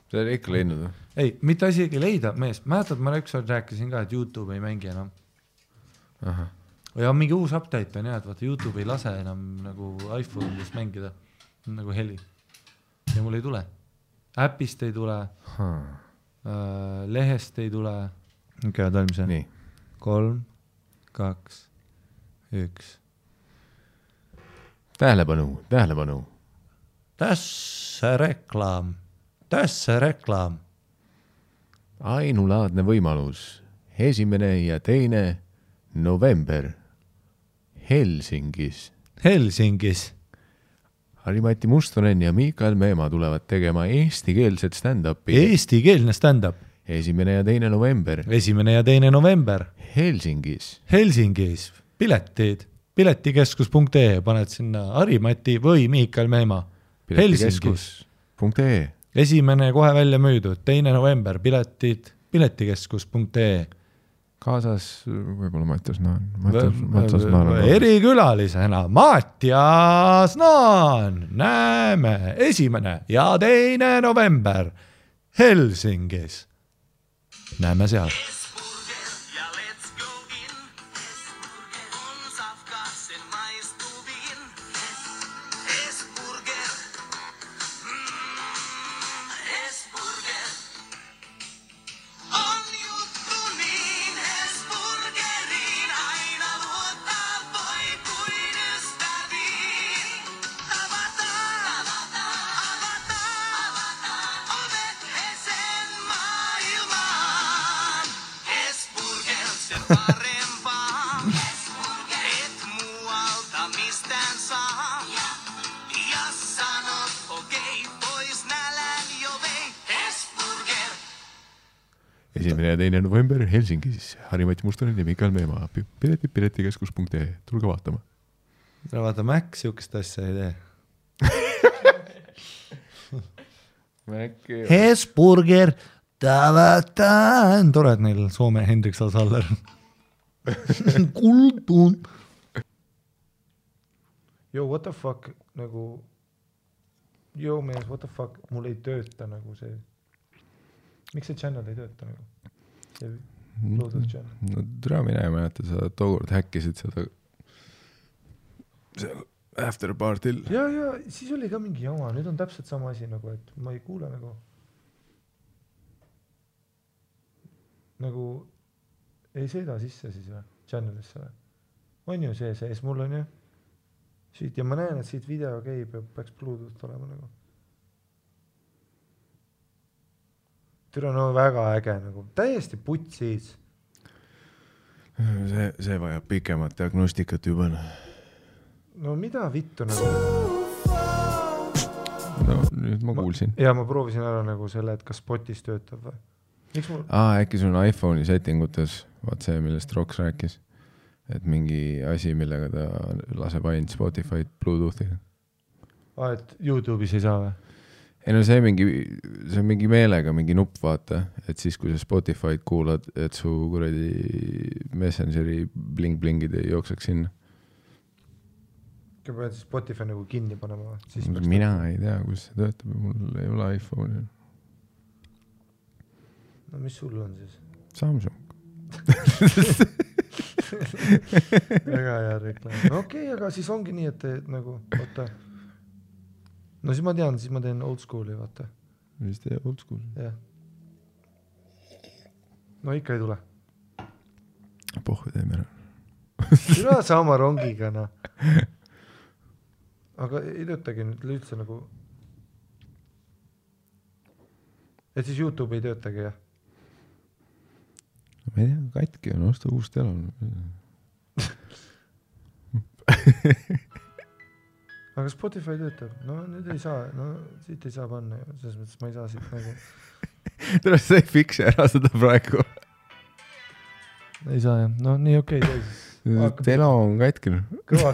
See oli ikka leidnud. Ei, mitte asigi leida, mees. Mäletad, ma ükskord rääkisin ka, et YouTube ei mängi enam. Aha. Ja mingi uus update on jah, et vaata YouTube ei lase enam nagu iPhone'is mängida nagu heli. Ja mul ei tule. Äpist ei tule, lehest ei tule. Okei, talmise. Nii. 3, 2, 1. Tähelepanu. Tässä reklaam. Ainulaadne võimalus. 1. ja 2. november Helsingis. Harri-Mati Mustonen ja Mikael Meemaa tulevad tegema eestikeelset stand-upi. Eestikeelne stand-up. 1. ja 2. november 1. ja 2. november Helsingis. Piletikeskus.ee paned sinna Harri-Mati või Mikael Meemaa. Piletikeskus.ee 1. kohe välja müüdud, 2. november piletikeskus.ee kaasas võib-olla Mattias Naan. Erikülalisena Mattias Naan. Näeme 1. ja 2. november Helsingis. Näeme seal. Ja 2. november Helsingis. Harri-Mati Mustonen ja Mikael Meemaa. Piletikeskus.ee. Tulge vaatama. Vaata, Mac siukest asja ei tee. Hesburger. Tore, et neil Soome Hendrik Saller. Kuldun. Yo, what the fuck? Nagu... Yo, mees, what the fuck? Mul ei tööta nagu see... Miks see channel ei tööta nagu? See Bluetooth channel. No türa mine ei mäleta, sa tookord häkkisid seda seal after party'l. Ja, siis oli ka mingi jama. Nüüd on täpselt sama asi nagu, et ma ei kuule nagu ei sõida sisse siis või? Channelisse või? On ju see sees, mul on ju siit ja ma näen, et siit video käib ja peaks Bluetooth olema nagu. Türa no väga äge nagu, täiesti putsis. See vajab pikemat diagnostikat juba. No mida vittu nagu? No nüüd ma kuulsin. Ja ma proovisin ära nagu selle, et kas Spotis töötab või? Miks mul? Äkki sul on iPhone'i settingutes, vaat see, millest Roks rääkis, et mingi asi, millega ta laseb ainult Spotify'd Bluetoothi. Et YouTube'is ei saa või? Ei no see on mingi meelega, mingi nupp vaata, et siis kui sa Spotify'd kuulad, et su kuradi Messengeri bling-blingid ei jookseks sinna. Kui pead Spotify nagu kinni panema või? Mina ei tea, kus see töötab, mul ei ole iPhone'i. No mis sul on siis? Samsung. Väga hea reklaam. No okei, aga siis ongi nii, et nagu, vaata. No siis ma tean, siis ma teen old school'i, vaata. Mis tee old school? Jah. No ikka ei tule. Pohve teeme ära. Üle sama rongiga, no. Aga ei töötagi nüüd üldse nagu... Et siis YouTube ei töötagi, jah? Ma ei tea, katki on, osta uus telon. Aga Spotify töötab. No nüüd ei saa, no siit ei saa panna. Selles mõttes ma ei saa siit nagu... Tere, sa ei fikse ära seda praegu. Ei saa, jah. No nii okei. Telo on katki. Kõva.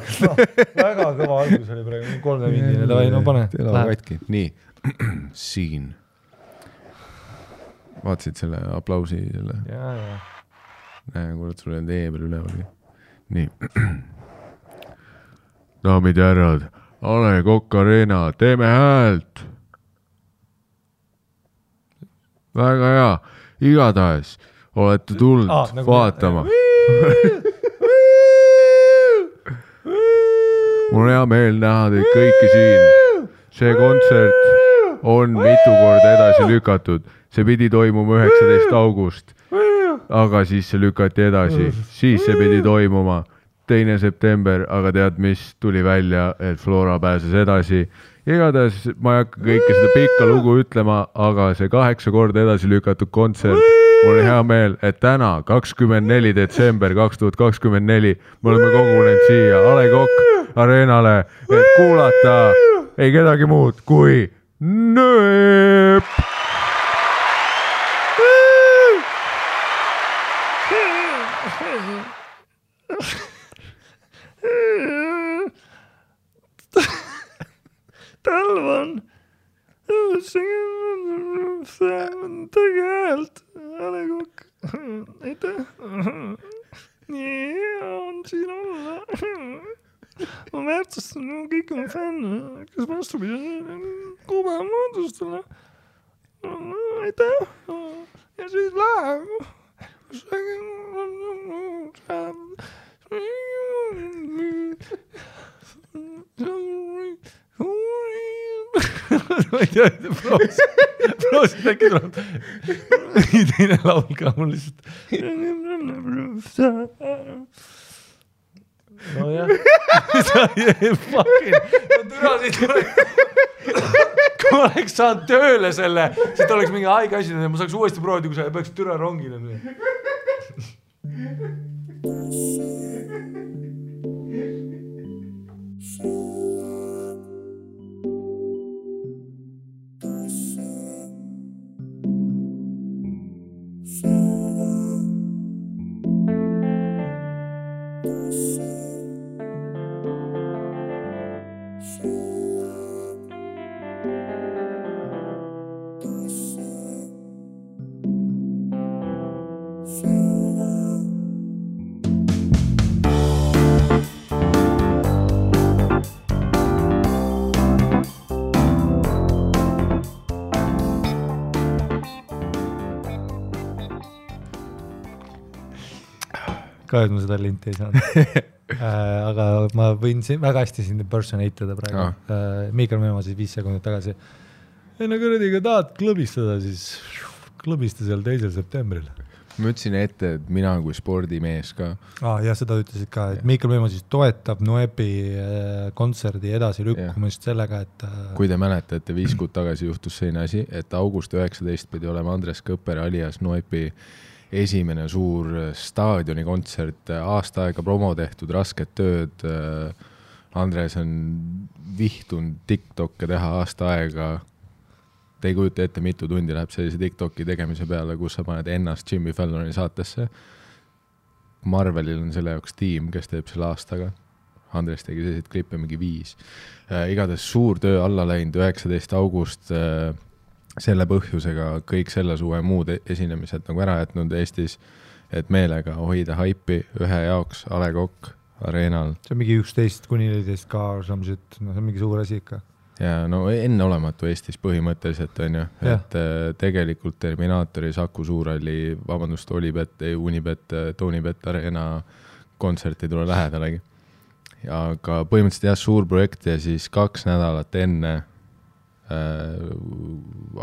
Väga kõva algus oli praegu. 3 mindine. Davai, no pane. Telo on katki. Nii. Siin. Vaatasid selle aplausi selle. Ja. Näe, kurat, sul on tee peal ülevalgi. Nii. Daamid ja härrad, A Le Coq Arena, teeme häält. väga hea, igatahes olete tulnud vaatama. Mul on hea meel näha teid kõiki siin. See kontsert on mitu korda edasi lükatud. See pidi toimuma 19. august, aga siis see lükati edasi. Siis see pidi toimuma 2. september, aga tead mis, tuli välja, et Flora pääses edasi. Igatahes ma ei hakka kõike seda pikka lugu ütlema, aga see 8 korda edasi lükatud kontsert, mul on hea meel, et täna, 24. detsember 2024, me oleme kogunenud siia A. Le Coq Arenale, et kuulata ei kedagi muud kui Nööp! Talvan tegelikult A. Le Coq aitäh nii hea on siin olla ma väärtustan kõik oma fänne kes vastupidi kuba moodustele aitäh ja siis läheb ma ei tea, proosid äkki tuleb nii teine laul ka mul lihtsalt no jah sa fucking ma kui ma oleks saanud tööle selle siis ta oleks mingi haige asi ma saaks uuesti proovida kui sa peaks türa rongile ka, et ma seda linti ei saanud. Aga ma võin väga hästi sind impersonate praegu. Miikal Meemo siis 5 sekundit tagasi. Ei no kõrediga tahad klõbistada, siis klõbista seal 2. septembril. Ma ütlesin ette, et mina kui spordimees ka. Ja seda ütlesid ka, et Miikal Meemo siis toetab Noepi kontserdi edasi lükkumist sellega, et... Kui te mäletate, 5 kuud tagasi juhtus selline asi, et august 19 pidi olema Andres Kõpper alias Noepi esimene suur staadioni kontsert, aasta aega promo tehtud, rasket tööd. Andres on vihtunud TikTokke teha aasta aega. Te ei kujuta ette, mitu tundi läheb sellise TikToki tegemise peale, kus sa paned ennast Jimmy Falloni saatesse. Marvelil on selle jaoks tiim, kes teeb selle aastaga. Andres tegi selliseid klippe mingi 5. Igatahes suur töö alla läinud 19. august selle põhjusega kõik selle suve muud esinemised nagu ära jätnud Eestis, et meelega hoida haipi ühe jaoks A. Le Coq Arenal. See on mingi 11-14 ka, see on mingi suur asi ikka. Ja no enne olematu Eestis põhimõtteliselt on ju, et tegelikult Terminaatori, Saku Suurhalli, vabandust, Olibet, Unibet, Tonibet Arena kontsert ei tule lähedalegi. Aga põhimõtteliselt suur projekt ja siis 2 nädalat enne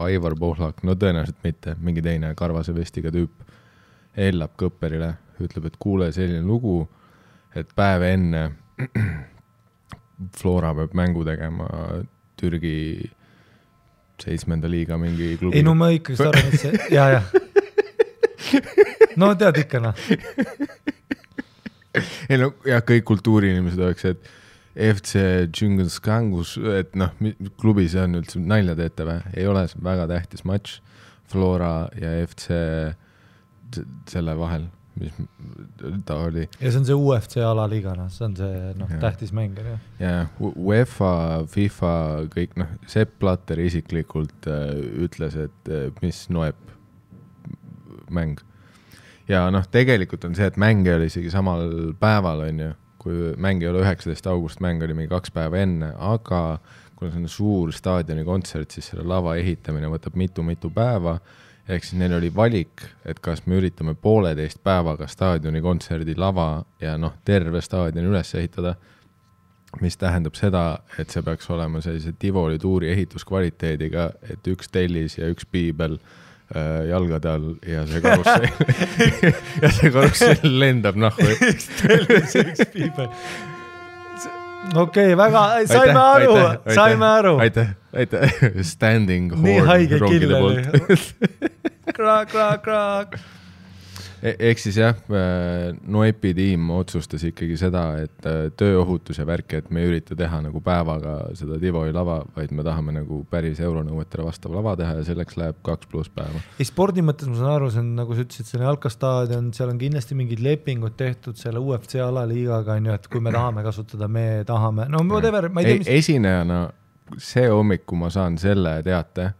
Aivar Pohlak, no tõenäoliselt mitte, mingi teine karvase vestiga tüüp hellab Kõpperile, ütleb, et kuule selline lugu, et päev enne Flora peab mängu tegema Türgi 7. liiga mingi klubi. Ei, no ma ikkagi arvan, et see... Ja. No tead ikka, noh. Ei, no ja kõik kultuuriinimesed oleks, et FC Džingelskangus, et noh, klubis on üldse nalja teete või? Ei ole väga tähtis matš Flora ja FC selle vahel, mis ta oli. Ja see on see UFC alaliigana, see on see tähtis mäng. Ja UEFA, FIFA, kõik, Sepp Blatter isiklikult ütles, et mis Noep mäng. Ja tegelikult on see, et mäng oli isegi samal päeval, on ju, kui mäng ei ole 19. august, mäng oli mingi 2 päeva enne, aga kui on suur staadioni kontsert, siis selle lava ehitamine võtab mitu päeva, ehk siis neil oli valik, et kas me üritame 1,5 päevaga staadioni kontserdi lava ja terve staadioni üles ehitada, mis tähendab seda, et see peaks olema sellise Tivoli tuuri ehituskvaliteediga, et üks tellis ja üks piibel jalgade all ja see karussell lendab nahku. Üks tellis ja üks piibel. Okei, väga, saime aru. Aitäh. Standing horn. Nii haige kill oli. Kraak. Ehk siis jah, Noepi tiim otsustas ikkagi seda, et tööohutus ja värk, et me ei ürita teha nagu päevaga seda Tivoli lava, vaid me tahame nagu päris euronõuetele vastav lava teha ja selleks läheb 2+ päeva. Ei, spordi mõttes ma saan aru, see on, nagu sa ütlesid, see on jalkastaadion, seal on kindlasti mingid lepingud tehtud selle UFC alaliigaga, et kui me tahame kasutada, me tahame, whatever, ma ei tea, mis... Esinejana see hommiku ma saan selle teate,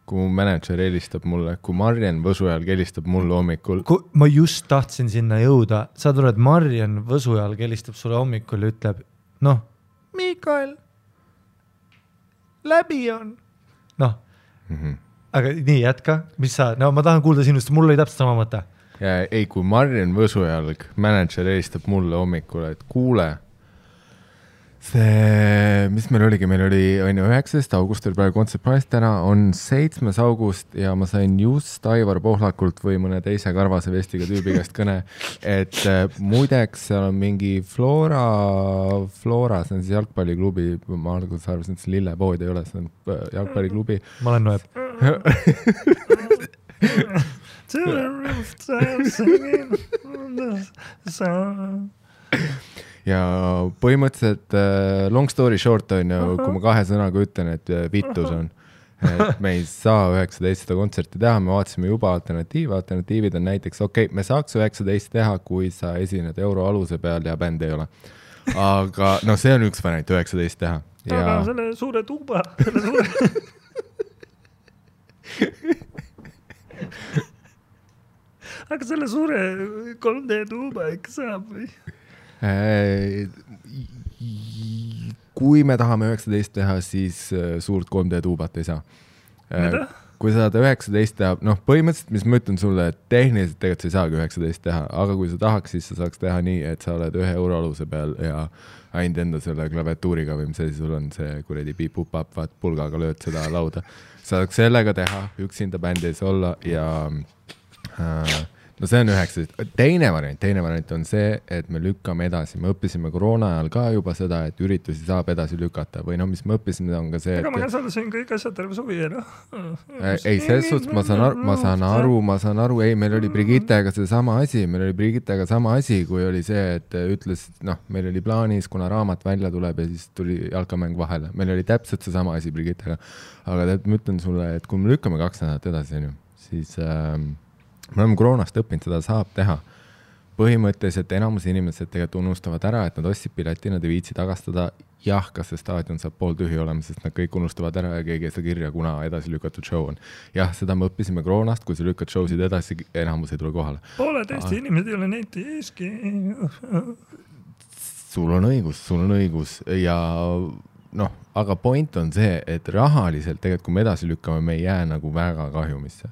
kui mu manager helistab mulle, kui Marjan Võsujalg helistab mulle hommikul. Ma just tahtsin sinna jõuda. Sa tuled, Marjan Võsujalg helistab sulle hommikul ja ütleb, Mikael, läbi on. Aga nii, jätka. Mis sa, ma tahan kuulda sinust, mul oli täpselt sama mõte. Ei, kui Marjan Võsujalg, manager helistab mulle hommikul, et kuule, see, mis meil oligi, meil oli 19. august oli praegu Concert Price, täna on 7. august ja ma sain just Aivar Pohlakult või mõne teise karvase vestiga tüübi käest kõne, et muideks seal on mingi Flora, see on siis jalgpalliklubi, ma alguses arvasin, et see lillepood ei ole, see on jalgpalliklubi. Ma olen Noeb. Ja põhimõtteliselt long story short on ju, kui ma 2 sõnaga ütlen, et vittus on, et me ei saa 19 kontserti teha, me vaatasime juba alternatiivid on näiteks, me saaks 19 teha, kui sa esined euro aluse peal ja bänd ei ole. Aga see on üks variant 19 teha. Aga selle suure tuuba, aga selle suure 3D tuuba ikka saab või? Kui me tahame 19 teha, siis suurt 3D tuubat ei saa. Mida? Kui sa tahad 19 teha, põhimõtteliselt, mis ma ütlen sulle, et tehniliselt tegelikult sa ei saagi 19 teha, aga kui sa tahaks, siis sa saaks teha nii, et sa oled 1 euro aluse peal ja ainult enda selle klaviatuuriga või mis asi sul on, see kuredi piip-up-up, vaat pulgaga lööd seda lauda. Sa saaks sellega teha, üksinda bändi ei saa olla ja see on 19. Teine variant on see, et me lükkame edasi. Me õppisime koroona ajal ka juba seda, et üritusi saab edasi lükata. Või mis me õppisime, on ka see, et... Aga ma käsaldasin kõik asjad terve suvi, Ei, selles suhtes ma saan aru, ei, meil oli Brigittega sama asi, kui oli see, et ütles, meil oli plaanis, kuna raamat välja tuleb ja siis tuli jalkamäng vahele. Meil oli täpselt see sama asi Brigittega. Aga ma ütlen sulle, et kui me lükkame 2 nädalat edasi, siis... me oleme koroonast õppinud, seda saab teha. Põhimõtteliselt enamus inimesed tegelikult unustavad ära, et nad ostsid pileti, nad ei viitsi tagastada. Jah, kas see staadion saab pool tühi olema, sest nad kõik unustavad ära ja keegi ei saa kirja, kuna edasi lükatud show on. Jah, seda me õppisime koroonast, kui sa lükkad showsid edasi, enamus ei tule kohale. Poole teiste inimesed ei ole neti eeski. Sul on õigus ja aga point on see, et rahaliselt tegelikult, kui me edasi lükkame, me ei jää nagu väga kahjumisse.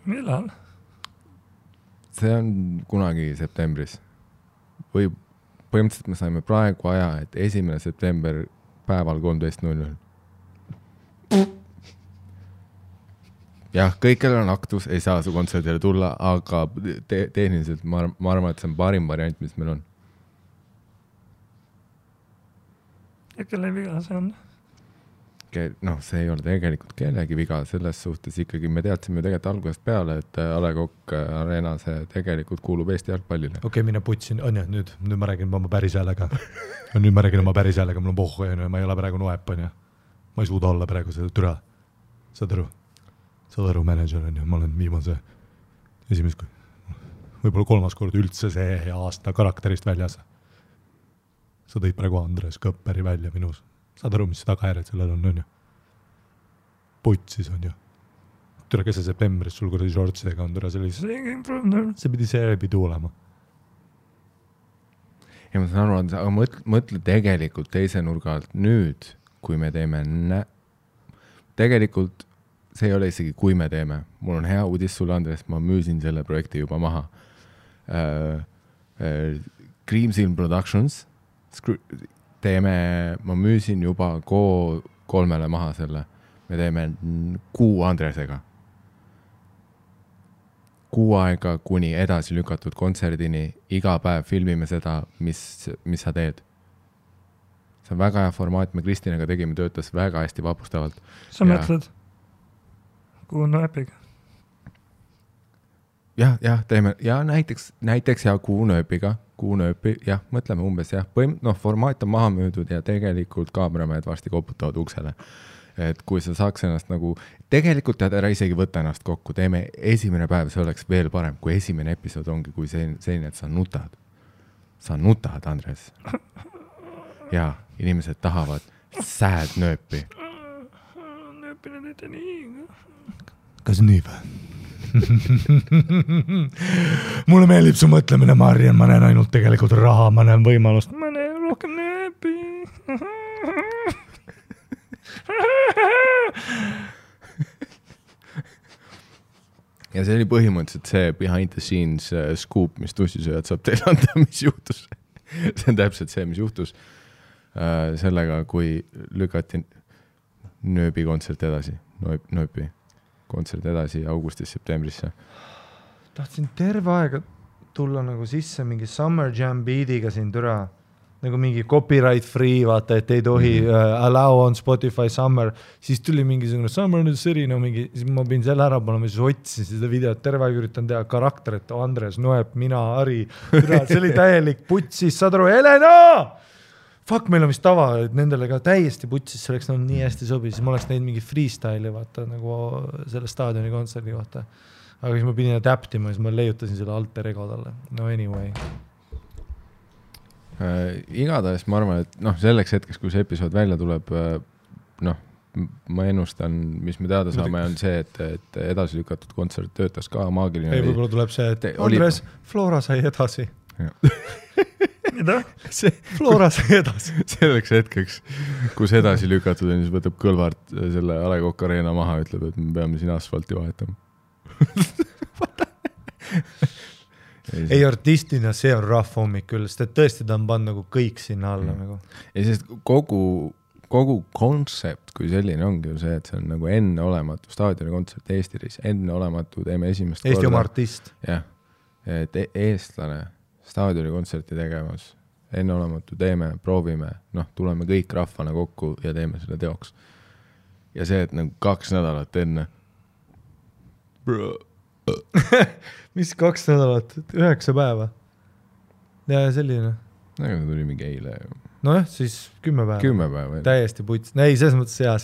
Millal? See on kunagi septembris. Või põhimõtteliselt me saime praegu aja, et 1. september päeval 13.00. Jah, kõikjal on aktus, ei saa su kontserdile tulla, aga tehniliselt ma arvan, et see on parim variant, mis meil on. Ja kelle viga see on? See ei ole tegelikult kellegi viga, selles suhtes ikkagi me teadsime tegelikult algusest peale, et A. Le Coq Arena see tegelikult kuulub Eesti jalgpallile. Mine putsin, nüüd ma räägin oma päris häälega. Mul on pohhu, ma ei ole praegu Noep, ma ei suuda olla praegu seda türa. Saad aru, manager on ju, ma olen viimase esimest, võib-olla 3. kord üldse see aasta karakterist väljas. Sa tõid praegu Andres Kõpperi välja minus. Saad aru, mis tagajärjed sellel on ju? Putsis on ju. Tule kes see septembris sul kuradi shortsidega on, tule see pidi olema. Ja ma saan aru, aga mõtle tegelikult teise nurga alt nüüd, kui me teeme tegelikult see ei ole isegi, kui me teeme. Mul on hea uudis sulle, Andres, ma müüsin selle projekti juba maha. Creamsil Productions ma müüsin juba 3 maha selle. Me teeme 6 Andresega. 6 aega kuni edasi lükatud kontserdini, iga päev filmime seda, mis sa teed. See on väga hea formaat, me Kristinaga tegime, töötas väga hästi vapustavalt. Sa mõtled? Kuhu on Nööpiga? Jah, teeme, ja näiteks ja Kuhu Nööpiga, jah, mõtleme umbes, jah, formaat on maha müüdud ja tegelikult kaameramehed varsti koputavad uksele. Et kui sa saaks ennast nagu, tegelikult tead ära isegi võtta ennast kokku, teeme esimene päev, see oleks veel parem, kui esimene episood ongi, kui selline, et sa nutad, Andres. Ja inimesed tahavad sad nööpi. Nööpine nüüd nii. Kas nii või? Mulle meeldib su mõtlemine, Marian, ma näen ainult tegelikult raha, ma näen võimalust, ma näen rohkem nööpi. Ja see oli põhimõtteliselt see behind the scenes scoop, mis tussisööjad saab teile anda, mis juhtus. See on täpselt see, mis juhtus sellega, kui lükati Nööbi kontsert edasi, Nööbi kontsert edasi augustis-septembrisse. Tahtsin terve aega tulla nagu sisse mingi Summer Jam beatiga siin türa, nagu mingi copyright free, vaata, et ei tohi allow on Spotify Summer, siis tuli mingisugune Summer in the City, no mingi, siis ma pidin selle ära panema, siis otsisin seda videot, terve aeg üritan teha karakterit, Andres, Noep, mina, Ari, see oli täielik putsis, saad aru, Helena! Fuck, meil on vist tava, et nendele ka täiesti putsis, see oleks nii hästi sobi, siis ma oleks näinud mingi freestyle'i, vaata, nagu selle staadioni kontserdi kohta. Aga siis ma pidin adaptima, siis ma leiutasin selle alter ego talle. No anyway. Igatahes ma arvan, et selleks hetkeks, kui see episood välja tuleb, ma ennustan, mis me teada saame, on see, et edasi lükatud kontsert töötas ka maagiline. Ei, võib-olla tuleb see, et Andres, Flora sai edasi. Mida? Flora sai edasi. Selleks hetkeks, kus edasi lükatud on, siis võtab Kõlvart selle A. Le Coq Arena maha, ütleb, et me peame siin asfalti vahetama. Ei, artistina see on rough hommik küll, sest et tõesti ta on pannud nagu kõik sinna alla. Nagu. Ja sest kogu kontsept, kui selline ongi ju see, et see on nagu enneolematu staadioni kontsert Eestis, enneolematu, teeme esimest korda. Eesti oma artist. Jah, et eestlane staadioni kontserti tegemas, enneolematu teeme, proovime, tuleme kõik rahvana kokku ja teeme selle teoks. Ja see, et nagu 2 nädalat enne. Mis 2 nädalat? 9 päeva? Ja selline. Nagu tuli mingi eile. Nojah, siis 10 päeva. 10 päeva. Täiesti puts. Ei, selles mõttes hea,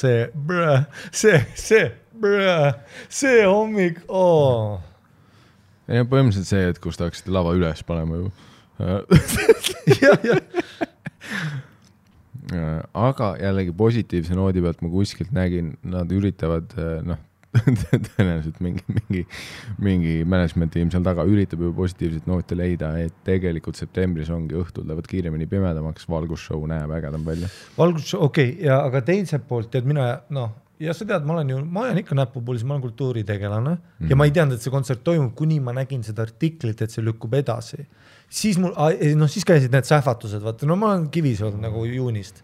see hommik. Oh. Ja põhimõtteliselt see, et kus tahaksite lava üles panema ju. Aga jällegi positiivse noodi pealt ma kuskilt nägin, nad üritavad, tõenäoliselt mingi management tiim seal taga üritab juba positiivset noote leida, et tegelikult septembris ongi õhtul lähevad kiiremini pimedamaks, valgusshow näeb ägedam välja. Valgusshow, okei, ja aga teiselt poolt, tead mina, ja sa tead, ma olen ikka näpupuulis, ma olen kultuuritegelane ja ma ei teadnud, et see kontsert toimub, kuni ma nägin seda artiklit, et see lükkub edasi. Siis siis käisid need sähvatused, vaata, ma olen Kivis olnud nagu juunist,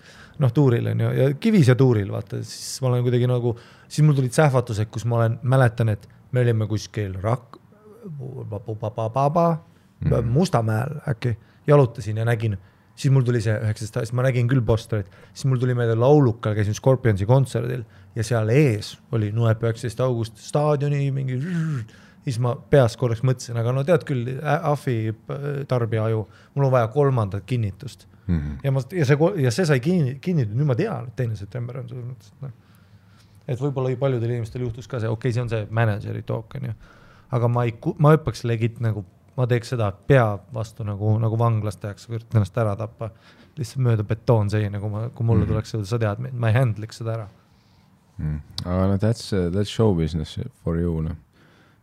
tuuril on ju, ja Kivis ja tuuril, vaata, siis ma olen kuidagi nagu, siis mul tulid sähvatused, kus ma mäletan, et me olime kuskil Mustamäel äkki, jalutasin ja nägin, siis mul tuli see 19, siis ma nägin küll posterit, siis mul tuli meelde laulukal, käisin Scorpionsi kontserdil ja seal ees oli Noep 19 august staadioni mingi, siis ma peas korraks mõtlesin, aga tead küll, Afi tarbija aju, mul on vaja 3. kinnitust. Ja see sai kinnitud, nüüd ma tean, et 2. september on see. Et võib-olla paljudel inimestel juhtus ka see, okei, see on see manageri talk, on ju. Aga ma õppaks legit nagu, ma teeks seda pea vastu nagu vanglas tehaks, kui üritan ennast ära tappa, lihtsalt mööda betoon seina, kui mulle tuleks seda, sa tead, ma ei handliks seda ära. Aga that's show business for you,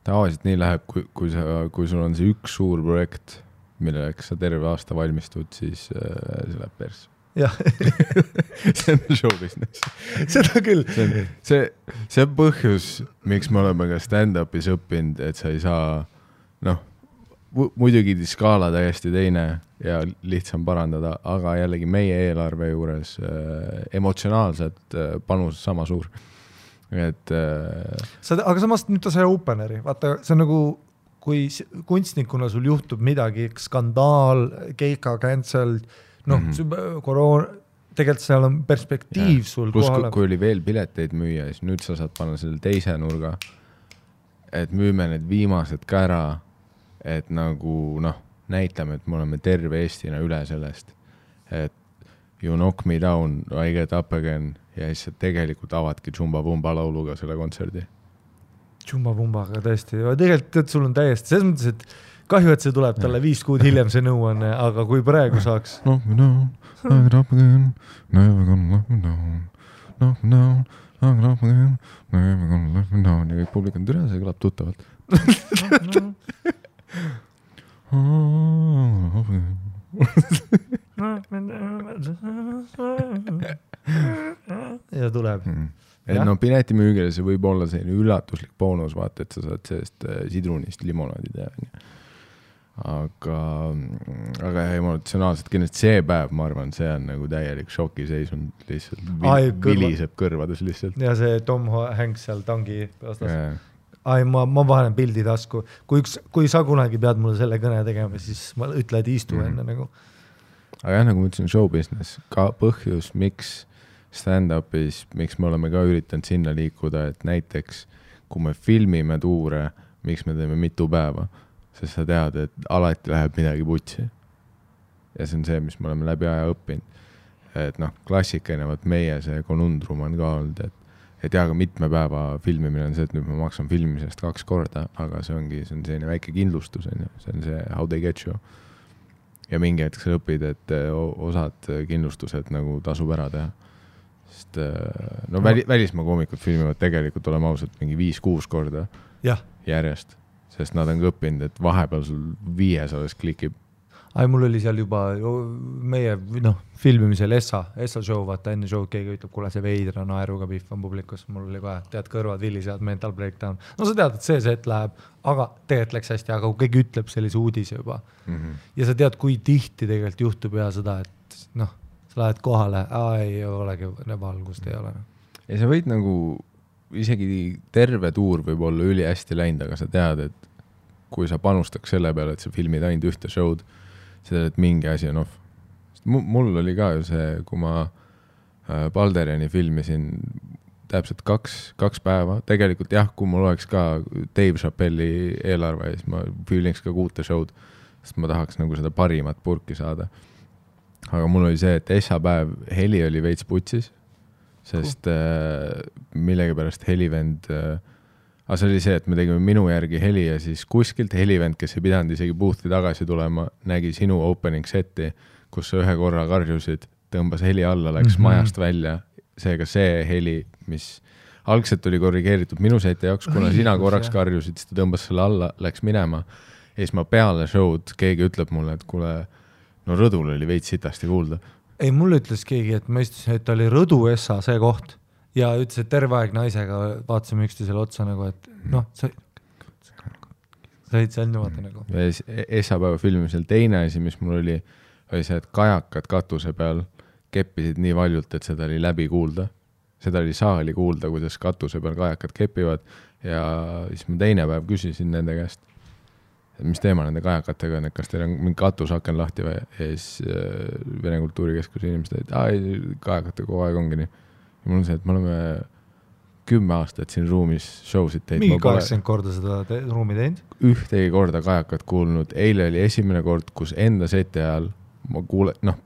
Tavaliselt nii läheb, kui sul on see üks suur projekt, milleks sa terve aasta valmistud, siis see läheb pers. jah. see on show business. Seda küll. See on põhjus, miks me oleme ka stand-upis õppinud, et sa ei saa, muidugi skaala täiesti teine ja lihtsam parandada, aga jällegi meie eelarve juures emotsionaalselt panus sama suur. Et, aga samast nüüd ta sai openeri, vaata, see on nagu kui kunstnikuna sul juhtub midagi, skandaal, keika cancel, koroona, tegelikult seal on perspektiiv sul plus, kohale. Kui oli veel pileteid müüa, siis nüüd sa saad panna selle teise nurga, et müüme need viimased ka ära, et nagu näitame, et me oleme terve Eestina üle sellest, et you knock me down, I get up again ja siis tegelikult avadki Jumba Vumba lauluga selle kontserdi. Jumba Vumbaga tõesti, tegelikult sul on täiesti, selles mõttes, et kahju, et see tuleb talle 5 kuud hiljem see nõuanne, aga kui praegu saaks. Knock me down, I get up again, never gonna let me down, knock me down, I get up again, never gonna let me down ja kõik publik on türa, see kõlab tuttavalt. ja tuleb. Et piletimüügile see võib olla selline üllatuslik boonus, vaata, et sa saad sellest sidrunist limonaadi teha. Aga emotsionaalselt kindlasti see päev, ma arvan, see on nagu täielik šokiseisund lihtsalt, viliseb kõrvades lihtsalt. Ja see Tom Hanks seal tangi vastas. Ma panen pildi tasku. Kui sa kunagi pead mulle selle kõne tegema, siis ma ütle, et istu enne nagu. Aga jah, nagu ma ütlesin, show business, ka põhjus, miks stand-upis, miks me oleme ka üritanud sinna liikuda, et näiteks, kui me filmime tuure, miks me teeme mitu päeva, sest sa tead, et alati läheb midagi putsi. Ja see on see, mis me oleme läbi aja õppinud. Et klassikaline, meie see konundrum on ka olnud, et aga mitme päeva filmimine on see, et nüüd ma maksan filmimisest 2 korda, aga see on selline väike kindlustus, see on see how they get you. Ja mingi hetk sa õpid, et osad kindlustused nagu tasub ära teha. Sest välismaa koomikud filmivad tegelikult olema ausalt mingi 5-6 korda järjest, sest nad on õppinud, et vahepeal sul 5 klikib. Mul oli seal juba meie filmimisel Essa show, vaata enne show keegi ütleb, kuule see veidra naeruga pihv on publikus, mul oli kohe, tead kõrvad vilisevad, mental breakdown. Sa tead, et see set läheb, aga tegelikult läks hästi, aga kui keegi ütleb sellise uudise juba. Ja sa tead, kui tihti tegelikult juhtub ja seda, et sa lähed kohale, ei olegi valgust, ei ole. Ja sa võid nagu, isegi terve tuur võib olla üli hästi läinud, aga sa tead, et kui sa panustaks selle peale, et sa filmid ainult ühte show'd, seda, et mingi asi on off. Mul oli ka ju see, kui ma Balderiani filmisin täpselt 2 päeva, tegelikult jah, kui mul oleks ka Dave Chappelli eelarve, siis ma filmiks ka 6 show'd, sest ma tahaks nagu seda parimat purki saada. Aga mul oli see, et päev heli oli veits putsis, sest millegipärast helivend aga see oli see, et me tegime minu järgi heli ja siis kuskilt helivend, kes ei pidanud isegi boothi tagasi tulema, nägi sinu opening seti, kus sa 1 korra karjusid, tõmbas heli alla, läks majast välja. Seega see heli, mis algselt oli korrigeeritud minu seti jaoks, kuna sina korraks karjusid, siis ta tõmbas selle alla, läks minema. Ja siis ma peale show'd keegi ütleb mulle, et kuule, rõdul oli veits sitasti kuulda. Ei, mulle ütles keegi, et ma istusin, et oli Rõdu Essa see koht. Ja ütles, et terve aeg naisega vaatasime üksteisele otsa nagu, et sa olid seal niimoodi nagu. Essapäeva filmimisel teine asi, mis mul oli see, et kajakad katuse peal keppisid nii valjult, et seda oli läbi kuulda. Seda oli saali kuulda, kuidas katuse peal kajakad kepivad ja siis ma teine päev küsisin nende käest, mis teema nende kajakatega on, et kas teil on mingi katusaken lahti või ja siis Vene Kultuurikeskuse inimesed, et kajakate kogu aeg ongi nii. Ja mul on see, et me oleme 10 aastat siin ruumis show'sid teinud. Mingi 80 korda seda ruumi teinud? Ühtegi korda kajakat kuulnud. Eile oli esimene kord, kus enda seti ajal ma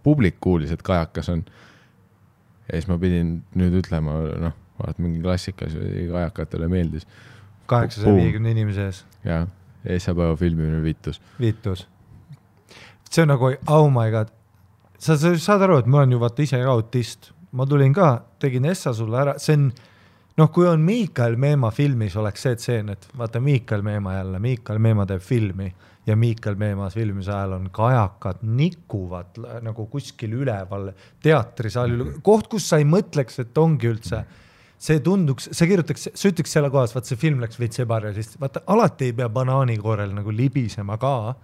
publik kuulis, et kajakas on. Ja siis ma pidin nüüd ütlema, vaat mingi klassikas kajakatele meeldis. 850 inimese ees. Ja, Essapäeva filmimine Vitus. See on nagu, oh my god. Sa saad aru, et ma olen ju vaata ise ka autist. Ma tulin ka, tegin Essa sulle ära, see on, kui on Miikael Meemaa filmis, oleks see tseen, et vaata Miikael Meemaa teeb filmi ja Miikael Meemaa filmis ajal on kajakad nikuvad nagu kuskil üleval teatrisaali, koht, kus sa ei mõtleks, et ongi üldse, see tunduks, see kirjutaks, see ütleks selle kohas, vaat see film läks veits ebarealist, vaata alati ei pea banaanikoorel nagu libisema ka,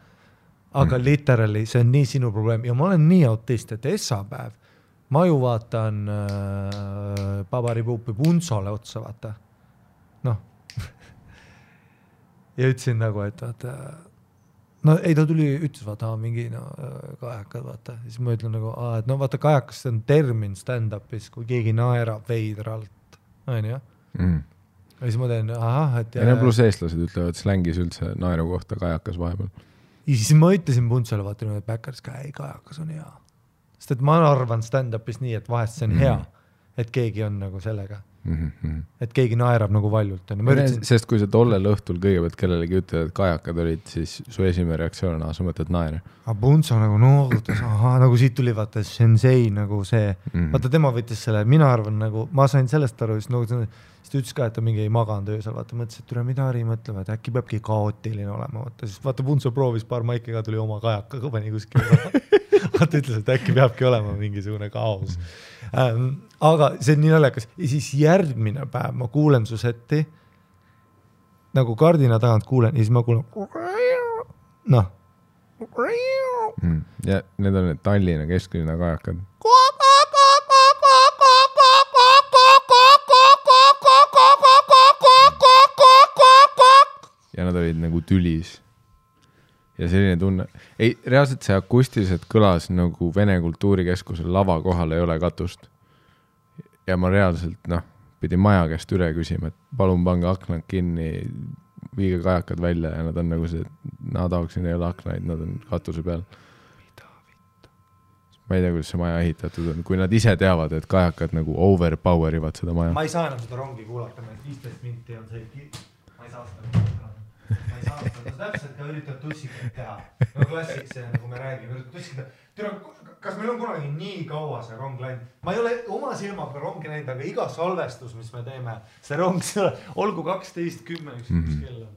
aga literally see on nii sinu probleem ja ma olen nii autist, et essapäev ma ju vaatan Pabaripuupi Punsole otsa, vaata. Ja ütlesin nagu, et vaata, ei ta tuli, ütles, vaata, mingi kajakad, vaata. Siis ma ütlen nagu, et vaata, kajakas on termin stand-upis, kui keegi naerab veidralt. On ju? Ja siis ma teen, et... Ja pluss eestlased ütlevad slängis üldse naeru kohta kajakas vahepeal. Ja siis ma ütlesin Punsole, vaata, et Backeris kajakas on hea. Sest et ma arvan stand-upis nii, et vahest see on hea, et keegi on nagu sellega. Et keegi naerab nagu valjult. Sest kui sa tollel õhtul kõigepealt kellelegi ütled, et kajakad olid, siis su esimene reaktsioon on, sa mõtled naere. Punso nagu noogutas, nagu siit tuli vaata sensei nagu see. Vaata tema võttis selle, mina arvan nagu, ma sain sellest aru, siis ta ütles ka, et ta mingi ei maganud öösel, vaata mõtles, et tule mida Ari mõtlema, et äkki peabki kaootiline olema. Vaata Punso proovis paar maiki ka tuli oma kajakaga pani kuskil. Vaata ütles, et äkki peabki olema mingisugune kaos. Aga see on nii naljakas. Ja siis järgmine päev ma kuulen su setti, nagu kardina tagant kuulen, ja siis ma kuulen ja need on need Tallinna kesklinna kajakad. Ja nad olid nagu tülis. Ja selline tunne. Ei, reaalselt see akustiliselt kõlas nagu Vene kultuurikeskusel lava kohal ei ole katust. Ja ma reaalselt, pidin maja käest üle küsima, et palun pange aknad kinni, viige kajakad välja ja nad on nagu see, naadauksin ei ole aknaid, nad on katuse peal. Ma ei tea, kuidas see maja ehitatud on. Kui nad ise teavad, et kajakad nagu overpowerivad seda maja. Ma ei saa enam seda rongi kuulata, 15 minti on see ma ei saa seda kuulata. Ma ei saa seda täpselt ka üritad tussikat teha. No klassik see, nagu me räägime, üritad tussikat. Kas meil on kunagi nii kaua see rong läinud? Ma ei ole oma silmaga rongi näinud, aga iga salvestus, mis me teeme, see rong, olgu 12:10 üks kell on.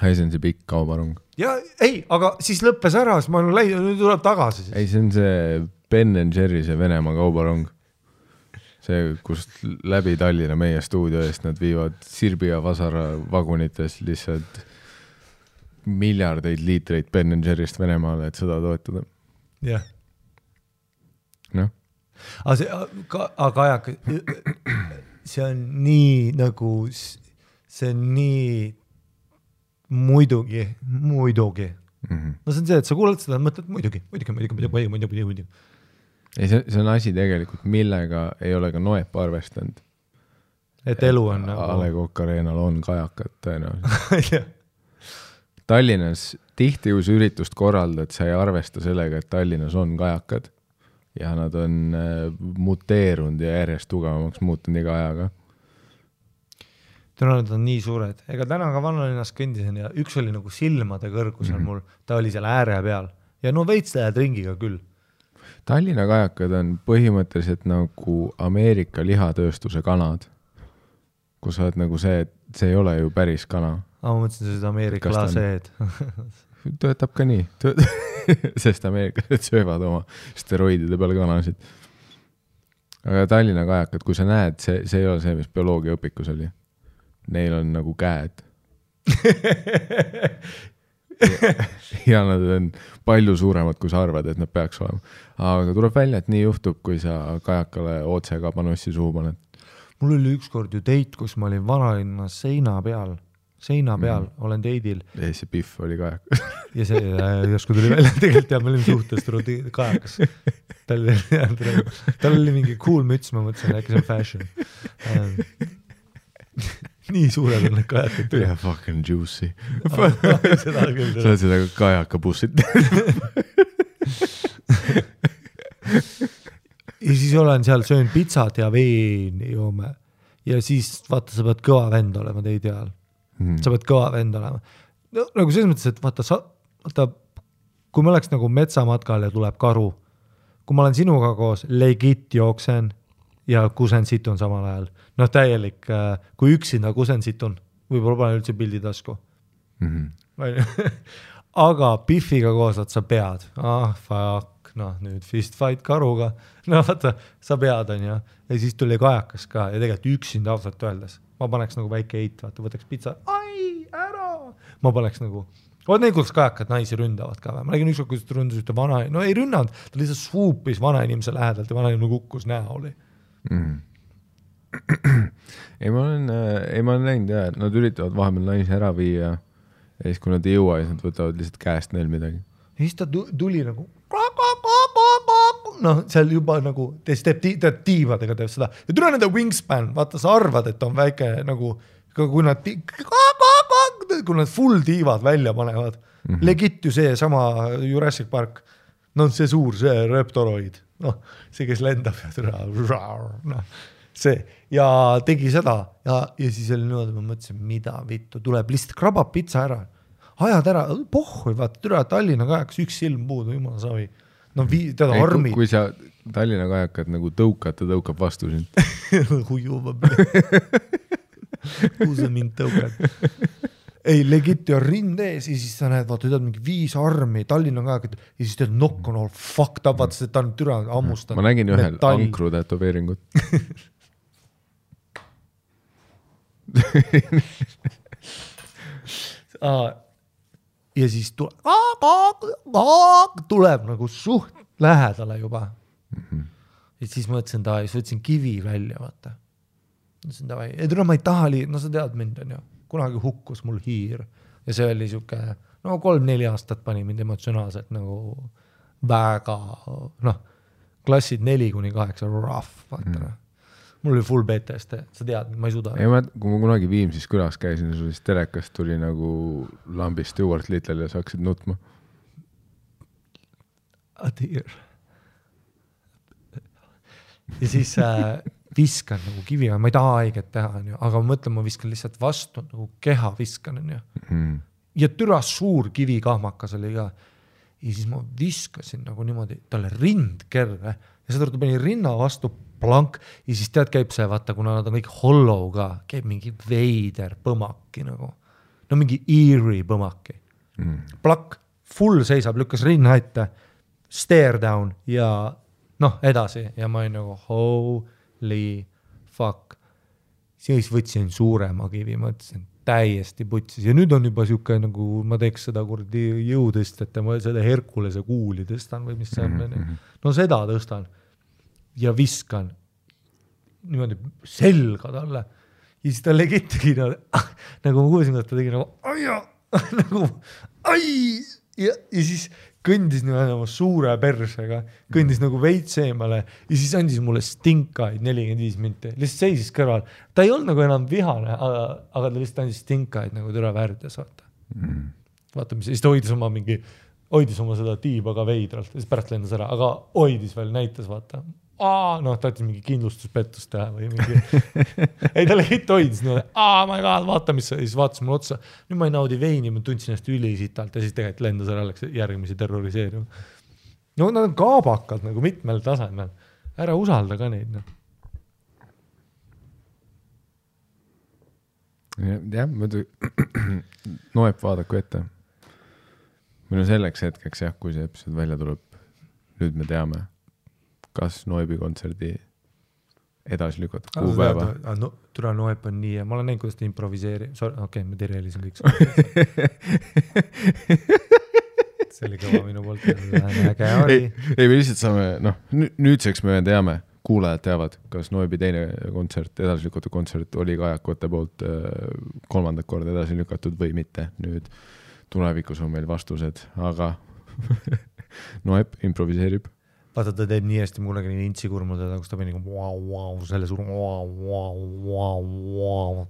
See on see pikk kaubarong. Ja ei, aga siis lõppes ära, siis ma olen läinud, nüüd tuleb tagasi. Ei, see on see Ben & Jerry, see Venemaa kaubarong. See, kust läbi Tallinna meie stuudio eest nad viivad Sirbi ja Vasara vagunites lihtsalt miljardeid liitreid Ben & Jerry'st Venemaale, et seda toetada. Jah. Noh. Aga see on nii nagu, see on nii muidugi. No see on see, et sa kuulad seda, mõtled muidugi. Ei, see on asi tegelikult, millega ei ole ka Noep arvestanud. Et elu on nagu... A Le Coq Arenal on kajakad tõenäoliselt. Tallinnas tihti kui üritust korraldad, sa ei arvesta sellega, et Tallinnas on kajakad ja nad on muteerunud ja järjest tugevamaks muutunud iga ajaga. Nad on nii suured. Ega täna ka Vannalinnas kõndisen ja üks oli nagu silmade kõrgusel mul, ta oli seal ääre peal ja no veits lähed ringiga küll. Tallinna kajakad on põhimõtteliselt nagu Ameerika lihatööstuse kanad, kus sa oled nagu see, et see ei ole ju päris kana. Ma mõtlesin, see Ameerika laseed. Töötab ka nii, sest ameeriklased söövad oma steroidide peal kanasid. Aga Tallinna kajakad, kui sa näed, see ei ole see, mis bioloogia õpikus oli. Neil on nagu käed. ja nad on palju suuremad, kui sa arvad, et nad peaks olema. Aga tuleb välja, et nii juhtub, kui sa kajakale otse kabanossi suhu paned. Mul oli ükskord ju teit, kus ma olin Vanalinna seina peal, olen teidil. Ja see Piff oli kajakas. ja see järsku tuli välja, tegelikult ja me olime suhtest kajakas. Tal oli mingi cool müts, ma mõtlesin, äkki see on fashion. Nii suured on need kajakad. Ja fucking juicy. Sa oled seda kajakabussit. Ja siis olen seal, söön pitsat ja veen joome. Ja siis vaata, sa pead kõva vend olema teid ajal. Sa pead kõva vend olema. No, nagu selles mõttes, et vaata, kui ma oleks nagu metsamatkal ja tuleb karu, kui ma olen sinuga koos legit jooksen ja kusen situn samal ajal. Noh, täielik, kui üksinda kusen situn, võib-olla pane üldse pildi tasku. Aga Biffiga koos, sa pead. Fuck, noh, nüüd fist fight karuga. No vaata, sa pead, on ja siis tuli kajakas ka ja tegelikult üksinda ausalt öeldes. Ma paneks nagu väike eit, vaata, võtaks pitsa, ära! Ma paneks nagu, need kuidas kajakad naisi ründavad ka. Ma nägin ükskord, kuidas ta ründas ühte vana, no ei rünnanud, ta lihtsalt swoopis vana inimese lähedalt ja vana inimene kukkus näoli. Ei, ma olen näinud jah, et nad üritavad vahepeal naisi ära viia ja siis kui nad ei jõua, siis nad võtavad lihtsalt käest neil midagi. Ja siis ta tuli nagu noh, seal juba nagu teeb tiivadega teeb seda ja tule nende wingspan, vaata sa arvad, et on väike nagu kui nad full tiivad välja panevad legit ju see sama Jurassic Park no see suur, see reptoroid noh, see kes lendab ja noh, see ja tegi seda ja siis oli niimoodi, ma mõtlesin, mida vittu tuleb, lihtsalt krabab pitsa ära ajad ära, pohhui, vaata türa Tallinna kajakas üks silm puudu, jumala savi no teda armid. Kui sa Tallinna kajakad nagu tõukad, ta tõukab vastu sind. Hujuva. Kuhu sa mind tõukad? Ei, legit ja rind ees ja siis sa näed, vaata, tead mingi 5 armi Tallinna kajakad ja siis tead nokk on all fucked up, vaata, ta on türa ammustanud. Ma nägin ühel ankru tätoveeringut. Ja siis tuleb nagu suht lähedale juba. Ja siis mõtlesin ta, siis võtsin kivi välja, vaata. Mõtlesin ta, ma ei taha no sa tead mind on ju, kunagi hukkus mul hiir. Ja see oli siuke, no 3-4 aastat pani mind emotsionaalselt nagu väga, noh, klassid 4-8 rough, vaata. Mul oli full PTSD, sa tead, ma ei suuda. Ei, kui ma kunagi Viimsis külas käisin, siis telekast tuli nagu lambist Stuart Little ja sa hakkasid nutma. Adir. Ja siis viskan nagu kivi, ma ei taha haiget teha, aga ma mõtlen, ma viskan lihtsalt vastu, nagu keha viskan. Ja türa suur kivi kahmakas oli ka. Ja siis ma viskasin nagu niimoodi, talle rind kerre ja seda ta pani rinna vastu plank ja siis tead käib see, vaata, kuna nad on kõik hollow ka, käib mingi veider põmaki nagu. No mingi eerie põmaki. Plakk, full seisab, lükkas rinna ette, stare down ja noh, edasi. Ja ma olin nagu holy fuck. Siis võtsin suurema kivi, mõtlesin täiesti putsis. Ja nüüd on juba siuke nagu, ma teeks seda kurdi jõudest, et ma seda Herkulese kuuli tõstan või mis see on. No seda tõstan. Ja viskan niimoodi selga talle. Ja siis ta legitigi nagu ma kuulsin, et ta tegi nagu ai! Ja siis kõndis niimoodi oma suure persega, kõndis nagu veits eemale ja siis andis mulle stinkaid 45 minti. Lihtsalt seisis kõrval. Ta ei olnud nagu enam vihane, aga ta lihtsalt andis stinkaid nagu türa väärdes, vaata. Vaata, mis siis ta hoidis oma seda tiiba ka veidralt ja siis pärast lendas ära, aga hoidis veel, näitas, vaata. Noh, ta mingi kindlustuspettust teha või mingi ei, ta legit hoidis ma ei vaata, mis siis vaatas mulle otsa nüüd ma ei naudi veini, ma tundsin ennast ülisitalt ja siis tegelikult lendas ära, läks järgmisi terroriseerima no nad on kaabakad nagu mitmel tasemel ära usalda ka neid jah, muidu noeb vaadaku ette meil on selleks hetkeks jah, kui see episood välja tuleb nüüd me teame kas Noibi kontserdi edasi lükata kuupäeva. Türa Noeb on nii ja ma olen näinud, kuidas ta improviseeri. Okei, ma tereelisin kõik. See oli kõva minu poolt. Äge oli. Ei, me lihtsalt saame, nüüdseks me teame, kuulajad teavad, kas Noibi teine kontsert, edasi lükatud kontsert oli kajakute poolt 3. korda edasi lükatud või mitte. Nüüd tulevikus on meil vastused, aga Noeb improviseerib. Vaata, ta teeb nii hästi, ma kunagi nii intsikurmul teda, kus ta pani selle suur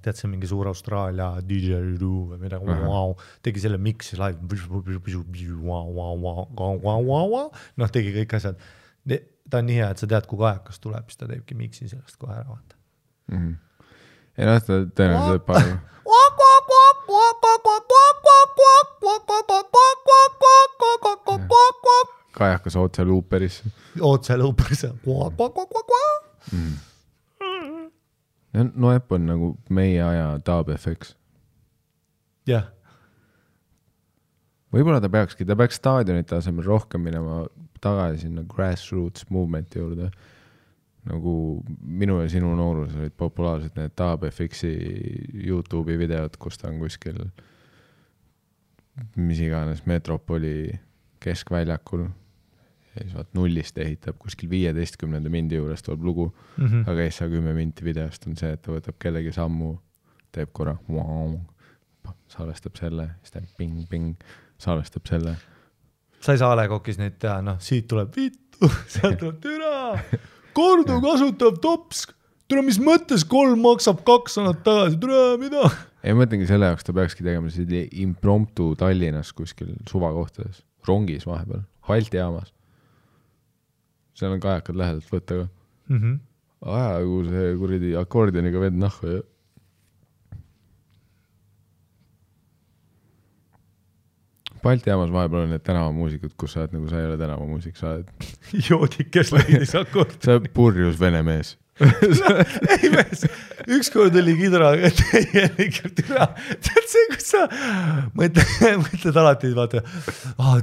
tead see mingi suur Austraalia DJ või midagi tegi selle mixi live noh, tegi kõik asjad ta on nii hea, et sa tead, kui kajakas tuleb siis ta teebki mixi sellest kohe ära vaata ei noh, ta tõenäoliselt palju kajakas otse luuperis. Otse luuperis. Noep on nagu meie aja Dub FX. Jah. Võib-olla ta peaks staadionite asemel rohkem minema tagasi sinna grassroots movement'i juurde. Nagu minu ja sinu noorus olid populaarsed need Dub FX-i YouTube'i videod, kus ta on kuskil mis iganes Metropoli keskväljakul ja siis vaat nullist ehitab kuskil 15 mindi juures tuleb lugu, aga ees 10 minti videost on see, et ta võtab kellegi sammu, teeb korra salvestab selle, siis teeb ping, salvestab selle. Sa ei saa Alekokis neid teha, siit tuleb vittu, sealt tuleb türa, kordu kasutav tops, türa, mis mõttes 3 maksab 2 annad tagasi, türa, mida? Ei mõtlengi selle jaoks, ta peakski tegema impromptu Tallinnas kuskil suvakohtades, rongis vahepeal, Balti jaamas. Seal on kajakad lähedalt võtta ka. Ajagu see kuridi akordioniga vend nahku ja Balti jaamas vahepeal on need tänavamuusikud, kus sa oled nagu sa ei ole tänavamuusik, sa oled joodik, kes leidis akordioni. Sa oled purjus vene mees. Ei mees, ükskord oli kidraga täielikult türa. Tead see, kus sa mõtled alati, vaata,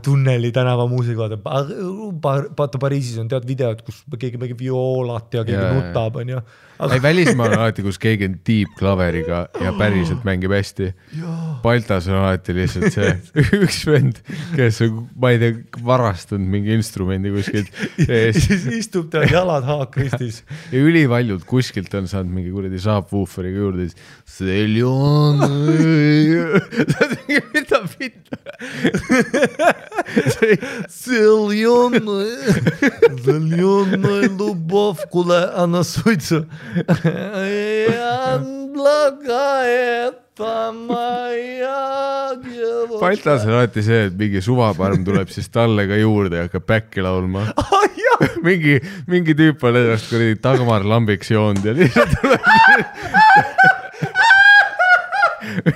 tunneli tänava muusik, vaata Pariisis on tead videod, kus keegi mängib violat ja keegi nutab, on ju. Ei, välismaal on alati, kus keegi on deep klaveriga ja päriselt mängib hästi. Baltas on alati lihtsalt see üks vend, kes on, ma ei tea, varastanud mingi instrumendi kuskilt. Siis istub ta jalad haakristis. Ja ülivaljud kuskilt on saanud mingi kuradi saabwooferiga juurde, siis Seljon, mida pitta? Seljon, любовь, куда она суется. Baltas on alati see, et mingi suvaparm tuleb siis talle ka juurde ja hakkab päkki laulma. mingi tüüp on ennast kuradi Dagmar Lambiks joonud ja lihtsalt tuleb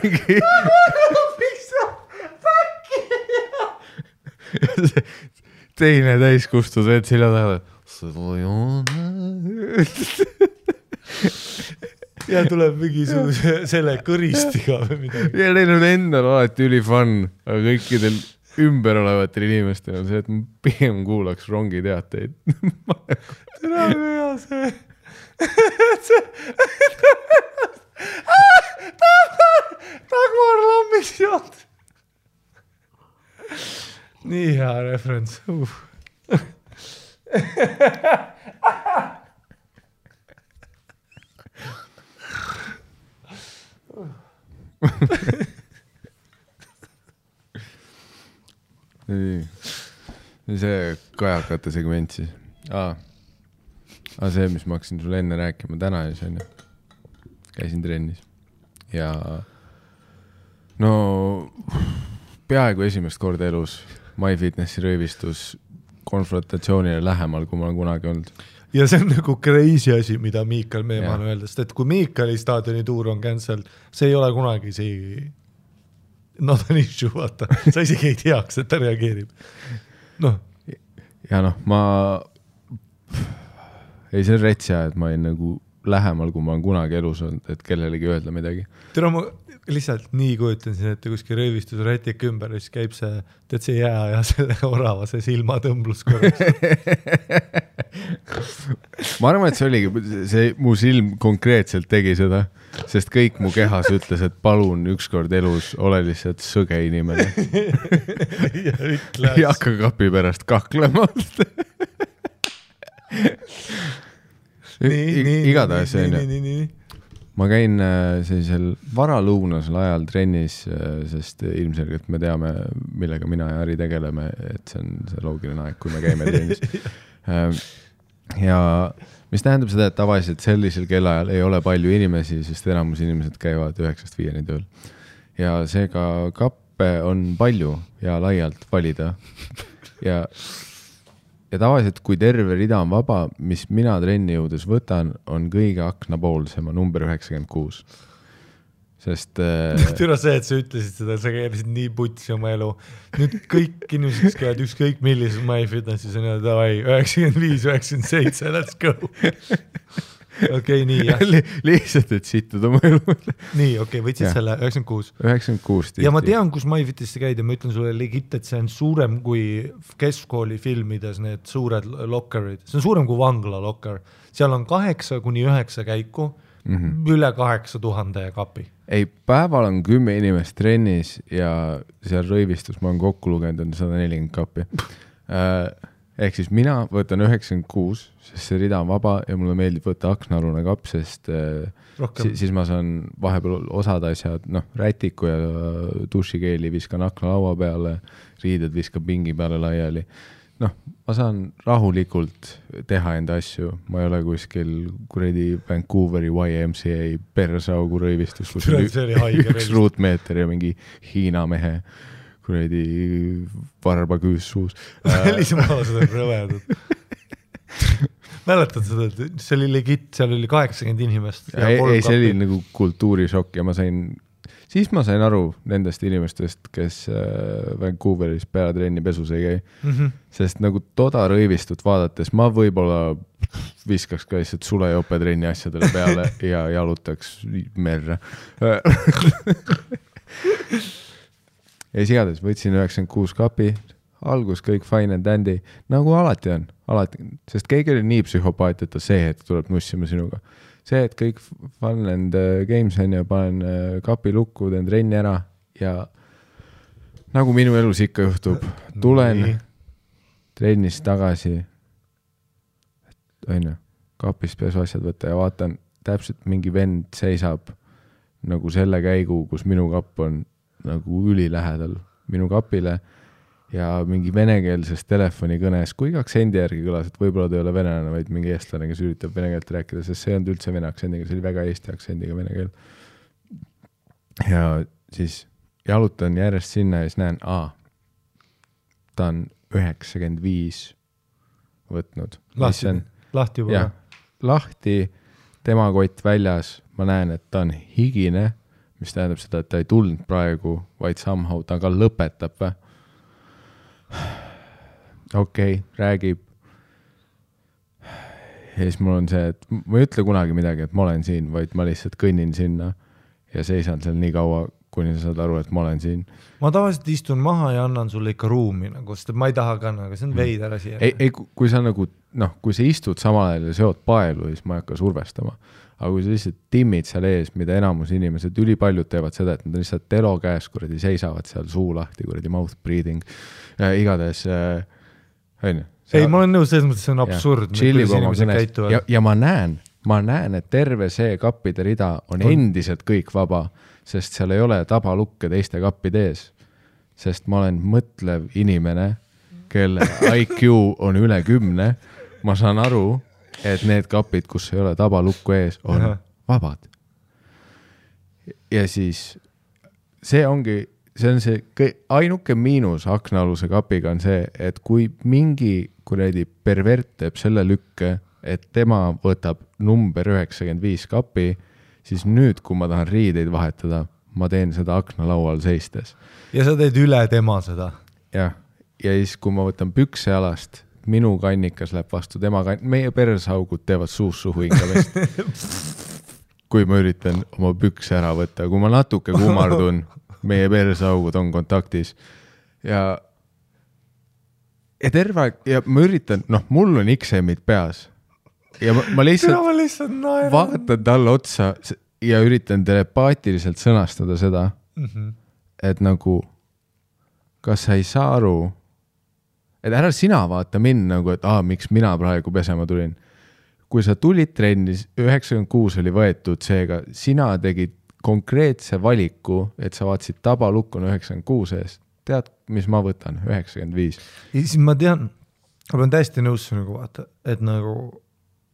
mingi teine täiskustus, et silla taga ja tuleb mingisuguse selle kõristiga või midagi. Ja neil on endal alati üli fun, aga kõikidel ümber olevatel inimestel on see, et ma pigem kuulaks rongi teateid. Tere hea see. Dagmar Lambiks jood. Nii hea referents. See kajakate segment siis. See, mis ma hakkasin sulle enne rääkima täna ja see on käisin trennis ja no peaaegu esimest korda elus MyFitnessi röövistus konfrontatsioonile lähemal, kui ma olen kunagi olnud. Ja see on nagu crazy asi, mida Miikal Meemaan öeldes, et kui Miikali staadioni tuur on cancel, see ei ole kunagi see not an issue, vaata. Sa isegi ei teaks, et ta reageerib. Ja ma ei see on retsia, et ma ei nagu lähemal, kui ma olen kunagi elus olnud, et kellelegi öelda midagi. Tere, ma lihtsalt nii kujutan siin, et kuskil röövistus rätik ümber, siis käib see, tead see jää ja selle orava, see silma tõmblus korraks. Ma arvan, et see oligi, see mu silm konkreetselt tegi seda, sest kõik mu kehas ütles, et palun ükskord elus ole lihtsalt sõge inimene. Ja hakka kapi pärast kaklema. Igatahes see ma käin sellisel varalõunasel ajal trennis, sest ilmselgelt me teame, millega mina ja Ari tegeleme, et see on see loogiline aeg, kui me käime trennis. Ja mis tähendab seda, et tavaliselt sellisel kellaajal ei ole palju inimesi, sest enamus inimesed käivad 9-5 tööl. Ja seega kappe on palju ja laialt valida. Ja tavaliselt, kui terve rida on vaba, mis mina trenni jõudes võtan, on kõige aknapoolsema number 96. Sest... Türa see, et sa ütlesid seda, sa käisid nii putsi oma elu. Nüüd kõik inimesed, kes käivad ükskõik millises MyFitnessis on davai, 95, 97, let's go. okei, nii, jah. Lihtsalt, et sittuda mu elu. Nii, okei, võtsid selle 96. 96 tihti. Ja ma tean, kus MyFitisse käid ja ma ütlen sulle legit, et see on suurem kui keskkooli filmides need suured lokkerid. See on suurem kui vangla lokker. Seal on 8-9 käiku, üle 8000 kapi. Ei, päeval on 10 inimest trennis ja seal rõivistus ma olen kokku lugenud, on 140 kapi. Ehk siis mina võtan 96, sest see rida on vaba ja mulle meeldib võtta aknaalune kapp, sest siis ma saan vahepeal osad asjad, rätiku ja dušikeeli viskan aknalaua peale, riided viskan pingi peale laiali. Ma saan rahulikult teha enda asju, ma ei ole kuskil kuredi Vancouveri YMCA persaugu rõivistus, kus üks ruutmeeter ja mingi Hiina mehe kuredi varba küüs suus. Välismaalased on rõvedad. Mäletad seda, et see oli legit, seal oli 80 inimest. Ei, see oli nagu kultuurishokk ja siis ma sain aru nendest inimestest, kes Vancouveris peatrenni pesus ei käi. Sest nagu toda rõivistut vaadates ma võib-olla viskaks ka lihtsalt sulejopetrenni asjadele peale ja jalutaks merre. Ja sigades võtsin 96 kapi, algus kõik fine and dandy, nagu alati on, sest keegi oli nii psühhopaat, et ta see hetk tuleb nussima sinuga. See, et kõik fun and games on ja panen kapi lukku, teen trenni ära ja nagu minu elus ikka juhtub, tulen trennist tagasi, kapist pesu asjad võtta ja vaatan, täpselt mingi vend seisab nagu selle käigu, kus minu kapp on nagu ülilähedal minu kapile ja mingi venekeelses telefonikõnes, kui aktsendi järgi kõlas, et võib-olla ta ei ole venelane, vaid mingi eestlane, kes üritab vene keelt rääkida, sest see on üldse vene aktsendiga, see oli väga eesti aktsendiga vene keel. Ja siis jalutan järjest sinna ja siis näen, ta on 95 võtnud. Lahti juba? Ja, lahti, tema kott väljas, ma näen, et ta on higine, mis tähendab seda, et ta ei tulnud praegu, vaid somehow ta ka lõpetab. Okei, räägib. Ja siis mul on see, et ma ei ütle kunagi midagi, et ma olen siin, vaid ma lihtsalt kõnnin sinna ja seisan seal nii kaua, kuni sa saad aru, et ma olen siin. Ma tavaliselt istun maha ja annan sulle ikka ruumi, sest ma ei taha ka, aga see on veider asi. Ei, kui sa nagu, kui sa istud samal ajal ja seod paelu, siis ma ei hakka survestama. Aga kui sa lihtsalt timmid seal ees, mida enamus inimesed, ülipaljud teevad seda, et nad lihtsalt telo käes kuradi seisavad seal suu lahti, kuradi mouth breathing, igades, Ei, ma olen nõus, selles mõttes see on absurd. Ja ma näen, et terve see kappide rida on endiselt kõik vaba, sest seal ei ole tabalukke teiste kappide ees. Sest ma olen mõtlev inimene, kelle IQ on üle 10, ma saan aru, et need kapid, kus ei ole tabalukku ees, on vabad. Ja siis see on see ainuke miinus aknaaluse kapiga on see, et kui mingi kuradi pervert teeb selle lükke, et tema võtab number 95 kapi, siis nüüd, kui ma tahan riideid vahetada, ma teen seda aknalaual seistes. Ja sa teed üle tema seda? Ja siis, kui ma võtan pükse jalast, minu kannikas läheb vastu tema meie persaugud teevad suhu ingavest. Kui ma üritan oma pükse ära võtta, kui ma natuke kummardun, meie persaugud on kontaktis ja terve aeg, ja ma üritan, mul on XM-id peas ja ma lihtsalt vaatan talle otsa ja üritan telepaatiliselt sõnastada seda, et nagu kas sa ei saa aru, et ära sina vaata mind nagu, et miks mina praegu pesema tulin. Kui sa tulid trennis, 96 oli võetud seega, sina tegid konkreetse valiku, et sa vaatasid tabalukku 96 eest. Tead, mis ma võtan? 95. Ja siis ma tean, ma olen täiesti nõus nagu vaata, et nagu,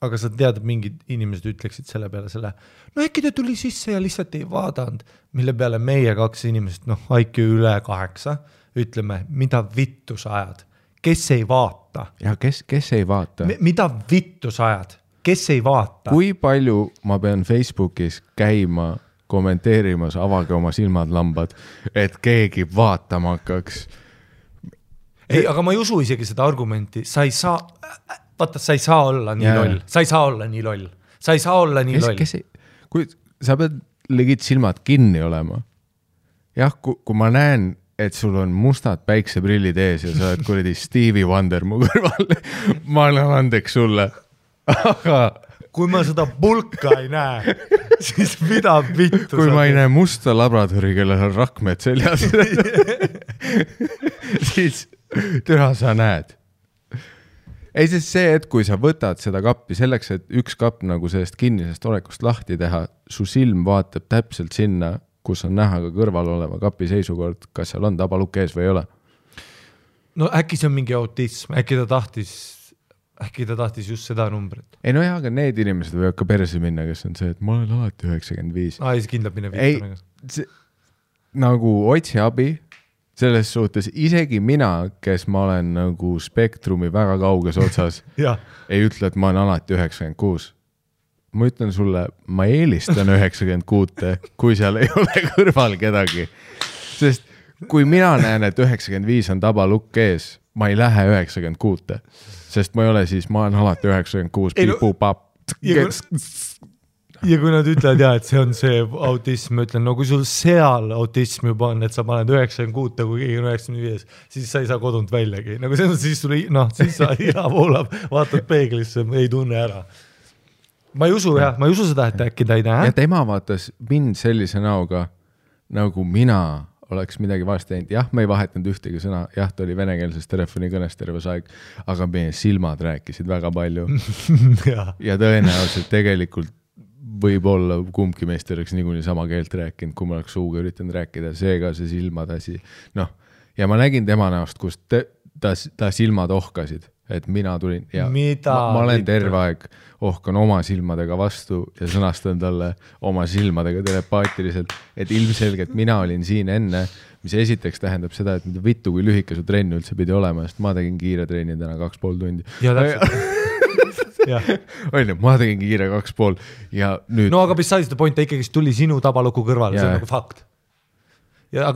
aga sa tead, et mingid inimesed ütleksid selle peale selle, äkki ta tuli sisse ja lihtsalt ei vaadanud, mille peale meie 2 inimesed, IQ üle 8, ütleme, mida vittu sa ajad? Kes ei vaata? Ja kes ei vaata? Mida vittu sa ajad? Kes ei vaata? Kui palju ma pean Facebookis käima, kommenteerimas, avage oma silmad lambad, et keegi vaatama hakkaks? Ei, aga ma ei usu isegi seda argumenti. Sa ei saa olla nii loll. Sa ei saa olla nii loll. sa ei saa olla nii loll. Kui sa pead legit silmad kinni olema. Jah, kui ma näen, et sul on mustad päikseprillid ees ja sa oled kuradi Stevie Wonder mu kõrval, ma annan andeks sulle. Aga kui ma seda pulka ei näe, siis mida vittu kui ma ei näe musta labradori, kellel on rakmed seljas, siis türa sa näed. Ei, sest see, et kui sa võtad seda kappi selleks, et üks kapp nagu sellest kinnisest olekust lahti teha, su silm vaatab täpselt sinna, kus on näha ka kõrval oleva kapi seisukord, kas seal on tabalukk ees või ei ole. No äkki see on mingi autism, äkki ta tahtis just seda numbrit. Ei no jah, aga need inimesed võivad ka perse minna, kes on see, et ma olen alati 95. Siis kindlalt minna vittu. Ei, nagu otsi abi, selles suhtes isegi mina, kes ma olen nagu spektrumi väga kauges otsas, ei ütle, et ma olen alati 96. Ma ütlen sulle, ma eelistan 96, kui seal ei ole kõrval kedagi. Sest kui mina näen, et 95 on tabalukk ees, ma ei lähe 96, sest ma ei ole siis, ma olen alati 96, piipupap. Ja kui nad ütlevad, et see on see autism, ma ütlen, no kui sul seal autism juba on, et sa paned 96, kui keegi on 95, siis sa ei saa kodunt väljagi. Nagu see on, siis sa iha voolab, vaatad peeglisse, ei tunne ära. Ma ei usu seda, et äkki ta ei näe. Ja tema vaatas mind sellise näoga, nagu mina oleks midagi vahest teinud. Jah, me ei vahetanud ühtegi sõna. Jah, ta oli venekeelses telefonikõnes terves aeg, aga meie silmad rääkisid väga palju. Ja tõenäoliselt tegelikult võib-olla kumbki meist oleks niikuinii sama keelt rääkinud, kui ma oleks suuga üritanud rääkida. Seega see silmad asi. Ja ma nägin tema näost, kus ta silmad ohkasid, et mina tulin ja ma olen terve aeg ohkan oma silmadega vastu ja sõnastan talle oma silmadega telepaatiliselt, et ilmselgelt mina olin siin enne, mis esiteks tähendab seda, et mida vittu kui lühike su trenn üldse pidi olema, sest ma tegin kiire trenni täna 2,5 tundi. Ja täpselt. ma tegin kiire 2,5 ja nüüd... No aga besides the point, ta ikkagi tuli sinu tabaluku kõrval, see on nagu fakt. Ja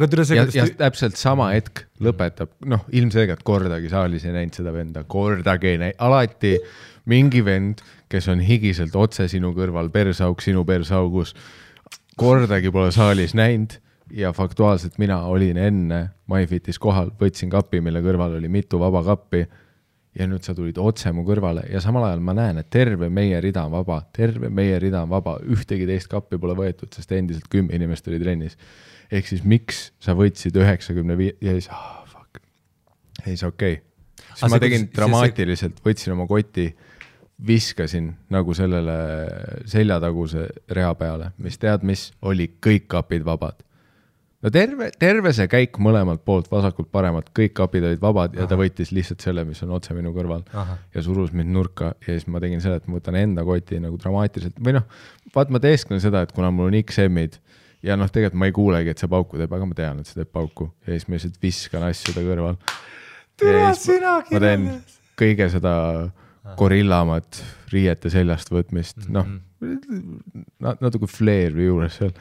täpselt sama hetk lõpetab, ilmselgelt kordagi saalis ei näinud seda venda, kordagi ei näinud, alati mingi vend, kes on higiselt otse sinu kõrval, persauk sinu persaugus, kordagi pole saalis näinud ja faktuaalselt mina olin enne MyFitis kohal, võtsin kapi, mille kõrval oli mitu vaba kappi ja nüüd sa tulid otse mu kõrvale ja samal ajal ma näen, et terve meie rida on vaba, ühtegi teist kappi pole võetud, sest endiselt 10 inimest oli trennis. Ehk siis miks sa võtsid 95 ja siis, fuck, ei see okei. Siis ma tegin dramaatiliselt, võtsin oma koti, viskasin nagu sellele seljataguse rea peale, mis tead, mis oli kõik kapid vabad. No terve see käik mõlemalt poolt, vasakult paremalt, kõik kapid olid vabad ja ta võttis lihtsalt selle, mis on otse minu kõrval ja surus mind nurka ja siis ma tegin selle, et ma võtan enda koti nagu dramaatiliselt või vaat ma teesklen seda, et kuna mul on XM-id ja tegelikult ma ei kuulegi, et see pauku teeb, aga ma tean, et see teeb pauku ja siis ma lihtsalt viskan asju ta kõrval. Ma teen kõige seda gorillamat riiete seljast võtmist, natuke flair juures seal.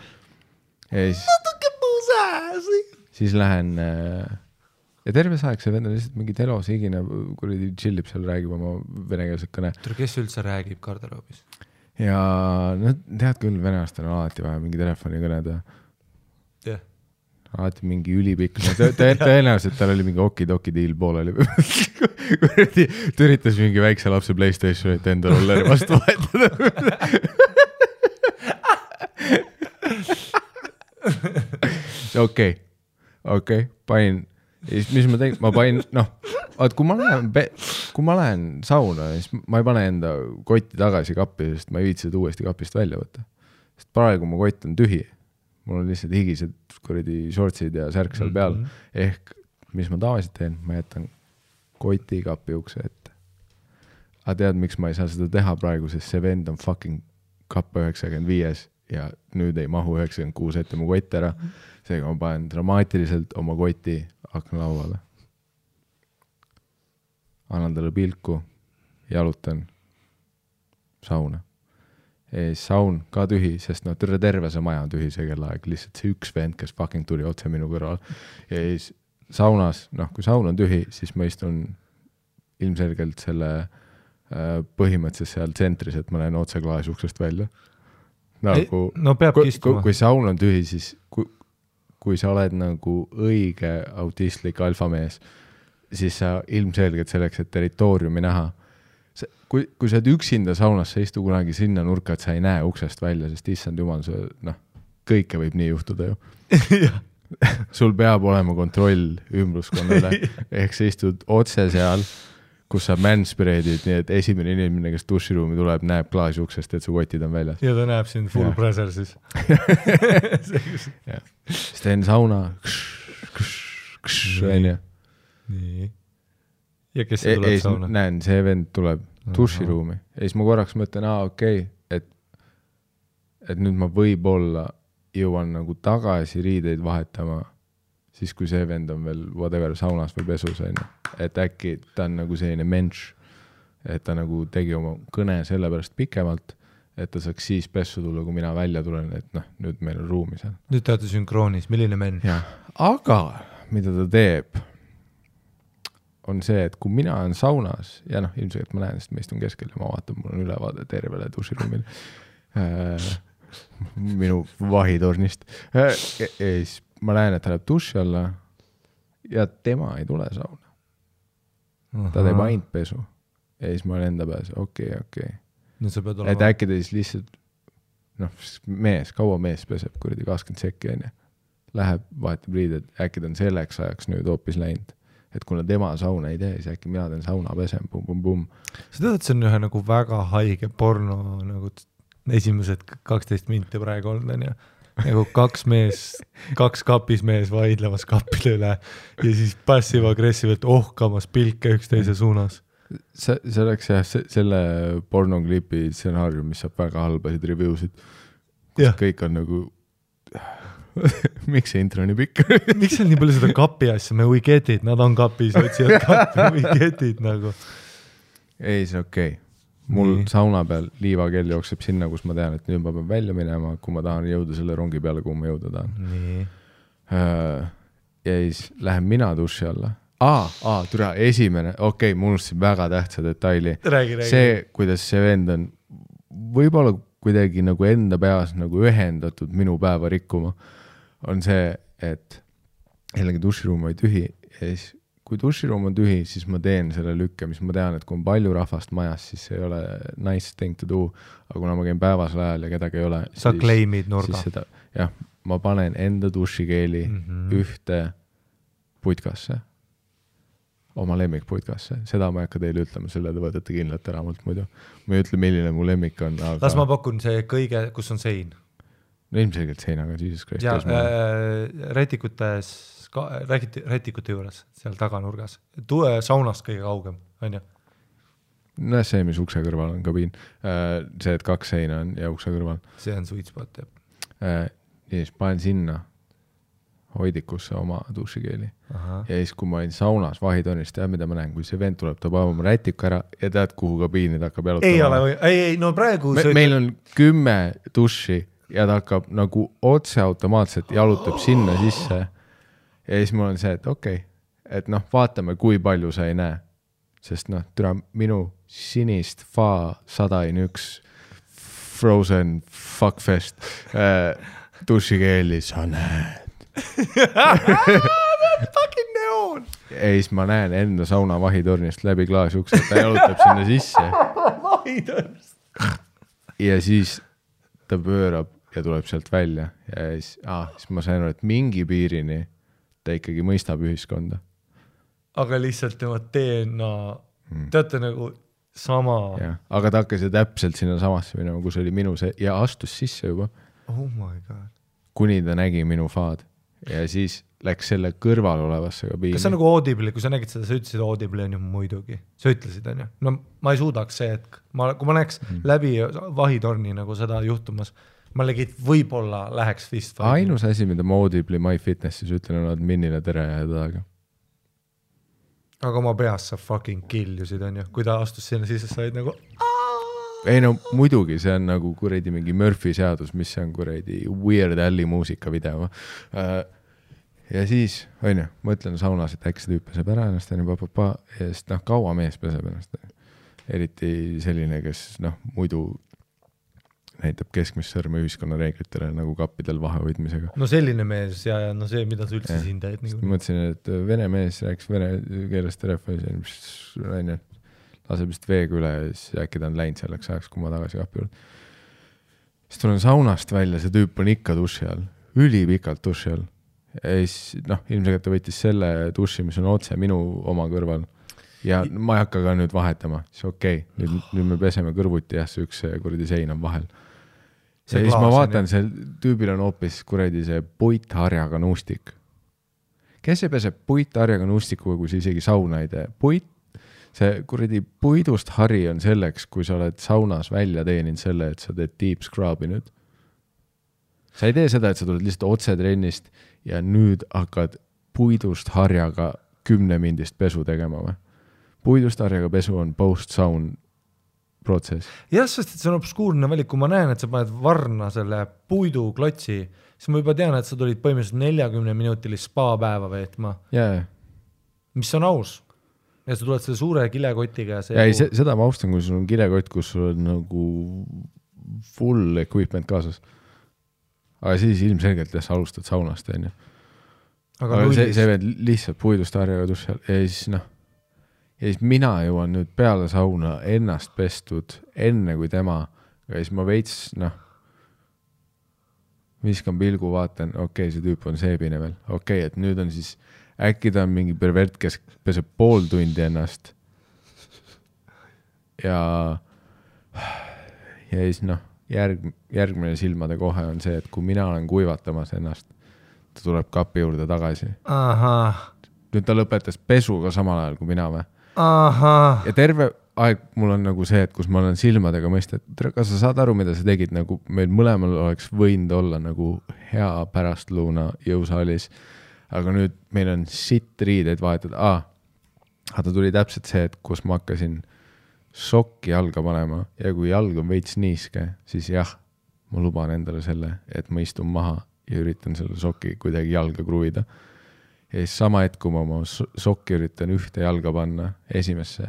Natuke puusääsi. Siis lähen ja terve aeg see vend on lihtsalt mingi telos higine, kuradi chillib seal, räägib oma venekeelset kõne. Kes üldse räägib garderoobis? Ja tead küll, venelastel on alati vaja mingi telefoni kõneda. Alati mingi ülipikk. Tõenäoliselt tal oli mingi okidoki deal pooleli. Ta üritas mingi väikse lapse PlayStationit enda rolleri vastu vahetada. Okei, panin. Mis ma tegin? Ma panin, kui ma lähen sauna, siis ma ei pane enda kotti tagasi kappi, sest ma ei viitsi seda uuesti kapist välja võtta. Sest praegu mu kott on tühi. Mul on lihtsalt higised kuradi shortsid ja särk seal peal. Ehk, mis ma tavaliselt teen, ma jätan koti kapi ukse ette. Aga tead, miks ma ei saa seda teha praegu, sest see vend on fucking kappa 95 ja nüüd ei mahu 96 ette mu kott ära. Seega ma panen dramaatiliselt oma koti aknalauale. Annan talle pilku, jalutan sauna. Saun ka tühi, sest terve see maja on tühi see kellaaeg, lihtsalt see üks vend, kes fucking tuli otse minu kõrval. Ja siis saunas, kui saun on tühi, siis ma istun ilmselgelt selle põhimõtteliselt seal tsentris, et ma lähen otse klaasuksest välja. Nagu, no peabki istuma. Kui saun on tühi, siis kui sa oled nagu õige autistlik alfamees, siis sa ilmselgelt selleks, et territooriumi näha, kui sa oled üksinda saunas, sa istu kunagi sinna nurka, et sa ei näe uksest välja, sest issand jumal, kõike võib nii juhtuda ju. Sul peab olema kontroll ümbruskonnale, ehk sa istud otse seal, kus sa manspreadid, nii et esimene inimene, kes duširuumi tuleb, näeb klaasi uksest, et su kotid on väljas. Ja ta näeb sind full pressure siis. Siis teen sauna. Nii. Ja kes see tuleb sauna? Näen, see vend tuleb duširuumi. Ja siis ma korraks mõtlen, okei, et nüüd ma võib-olla jõuan nagu tagasi riideid vahetama, siis kui see vend on veel whatever saunas või pesus, et äkki ta on nagu selline menš, et ta nagu tegi oma kõne sellepärast pikemalt, et ta saaks siis pessu tulla, kui mina välja tulen, et nüüd meil on ruumi seal. Nüüd te olete sünkroonis, milline menš? Aga mida ta teeb, on see, et kui mina olen saunas, ja ilmselt ma näen, sest ma istun keskel ja ma vaatan, mul on ülevaade tervele duširuumil, minu vahitornist. Ja siis ma näen, et ta läheb duši alla ja tema ei tule sauna. Ta teeb ainult pesu. Ja siis ma olen enda pääs, okei. Et äkki ta siis lihtsalt, kaua mees peseb, kuradi 20 sekki, läheb, vahetab riided, äkki ta on selleks ajaks nüüd hoopis läinud. Et kuna tema sauna ei tee, siis äkki mina teen sauna pesem, bum. Sa tead, et see on ühe nagu väga haige porno nagu esimesed 12 minti praegu olnud, nagu kaks kapis mees vaidlemas kappide üle ja siis passiv-agressiivselt ohkamas pilke üksteise suunas. See oleks selle pornoklipi stsenaarium, mis saab väga halbasid reviewsid, kus kõik on nagu miks see intro nii pikk? Miks on nii palju seda kapi asja? We get it, nad on kapis, otsivad kapi, we get it nagu. Ei, see okei. Mul sauna peal liivakell jookseb sinna, kus ma tean, et nüüd ma pean välja minema, kui ma tahan jõuda selle rongi peale, kuhu ma jõuda tahan. Ja siis lähen mina duši alla. Türa, esimene, ma unustasin väga tähtsa detaili. Räägi. See, kuidas see vend on võib-olla kuidagi nagu enda peas nagu ühendatud minu päeva rikkuma, on see, et jällegi duširuum oli tühi ja siis kui duširuum on tühi, siis ma teen selle lükke, mis ma tean, et kui on palju rahvast majas, siis see ei ole nice thing to do, aga kuna ma käin päevasel ajal ja kedagi ei ole, sa claimid nurga. Ma panen enda dušikeeli ühte putkasse, oma lemmikputkasse. Seda ma ei hakka teile ütlema, selle te võtate kindlalt ära mult muidu. Ma ei ütle, milline mu lemmik on. Aga... Las ma pakun see kõige, kus on sein. No ilmselgelt seinaga, Jesus Christ. Rätikute juures, seal taganurgas. Saunast kõige kaugem, on ju? No see, mis ukse kõrval on kabiin. See, et 2 seina on ja ukse kõrval. See on sweet spot, jah. Ja siis panen sinna hoidikusse oma dušikeeli. Ja siis, kui ma olin saunas vahitonist, mida ma näen, kui see vend tuleb, ta paeb oma rätiku ära ja tead, kuhu kabiini ta hakkab jalutama. Ei, no praegu... Meil on 10 duši ja ta hakkab nagu otse automaatselt jalutab sinna sisse. Ja siis mul on see, et et vaatame, kui palju sa ei näe. Sest minu sinist FA 101 Frozen Fuckfest dušikeeli sa näed. Fucking neon! Ja siis ma näen enda sauna vahitornist läbi klaasukse, ta jalutab sinna sisse. Vahitornist! Ja siis ta pöörab ja tuleb sealt välja. Ja siis ma sain aru, et mingi piirini ta ikkagi mõistab ühiskonda. Aga lihtsalt tema DNA, teate nagu sama... Ja, aga ta hakkas täpselt sinna samasse minema, kus oli minu see, ja astus sisse juba. Oh my god. Kuni ta nägi minu faad. Ja siis läks selle kõrval olevasse kabiini. Kas see on nagu Audible, kui sa nägid seda, sa ütlesid Audible on ju muidugi. Sa ütlesid, on ju? No ma ei suudaks see, et kui ma näeks läbi vahitorni nagu seda juhtumas, ma legid võib-olla läheks fist. Ainus asi, mida ma Audible'i MyFitnessis ütlen, on adminile tere ja taga. Aga oma peas sa fucking killusid, on ju? Kui ta astus sinna sisse, sa olid nagu... Ei no muidugi, see on nagu kuradi mingi Murphy seadus, mis on kuradi Weird Alli muusikavideo. Ja siis, on ju, mõtlen saunas, et äkki see tüüp peseb ära ennast, ja siis kaua mees peseb ennast. eriti selline, kes muidu näitab keskmist sõrme ühiskonna reeglitele nagu kappidel vahehoidmisega. No selline mees ja see, mida sa üldse siin teed. Mõtlesin, et vene mees rääks vene keelest telefoni, laseb vist veega üle ja siis äkki ta on läinud selleks ajaks, kui ma tagasi kapi juurde. Siis tulen saunast välja, see tüüp on ikka duši all, ülipikalt duši all. Ja siis, ilmselt ta võttis selle duši, mis on otse minu oma kõrval. Ja ma ei hakka ka nüüd vahetama, siis okei, nüüd me peseme kõrvuti ja see üks kuradi sein on vahel. Ja siis ma vaatan, see tüübil on hoopis kuradi see puitharjaga nuustik. Kes ei pese puitharjaga nuustikuga, kui sa isegi sauna ei tee? See kuradi puidust hari on selleks, kui sa oled saunas välja teeninud selle, et sa teed deep scrub'i nüüd. Sa ei tee seda, et sa tuled lihtsalt otse trennist ja nüüd hakkad puidust harjaga 10 mindist pesu tegema või? Puidust harjaga pesu on post-saun protsess. Jah, sest see on obskuurne valik, kui ma näen, et sa paned varna selle puidu klotsi, siis ma juba tean, et sa tulid põhimõtteliselt 40-minutilist spa-päeva veetma. Yeah. Mis on aus. Ja sa tuled selle suure kilekotiga. Seda ma austan, kui sul on kilekott, kus sul on nagu full equipment kaasas. Aga siis ilmselgelt sa alustad saunast. Aga see veed lihtsalt puidust harjaga tussal ja siis mina jõuan nüüd peale sauna ennast pestud enne kui tema ja siis ma veits viskan pilgu, vaatan, okei, see tüüp on seebine veel, okei, et nüüd on siis äkki ta on mingi pervert, kes peseb pool tundi ennast ja siis järgmine silmade kohe on see, et kui mina olen kuivatamas ennast, ta tuleb kapi juurde tagasi. Nüüd ta lõpetas pesu ka samal ajal kui mina või? Ja terve aeg mul on nagu see, et kus ma olen silmadega mõista, et kas sa saad aru, mida sa tegid, nagu meil mõlemal oleks võinud olla nagu hea pärastlõuna jõusaalis, aga nüüd meil on sitt riideid vahetud. Ta tuli täpselt see, et kus ma hakkasin sokki jalga panema ja kui jalg on veits niiske, siis jah, ma luban endale selle, et ma istun maha ja üritan selle sokki kuidagi jalga kruvida. Ja siis sama hetk, kui ma oma sokki üritan ühte jalga panna esimesse,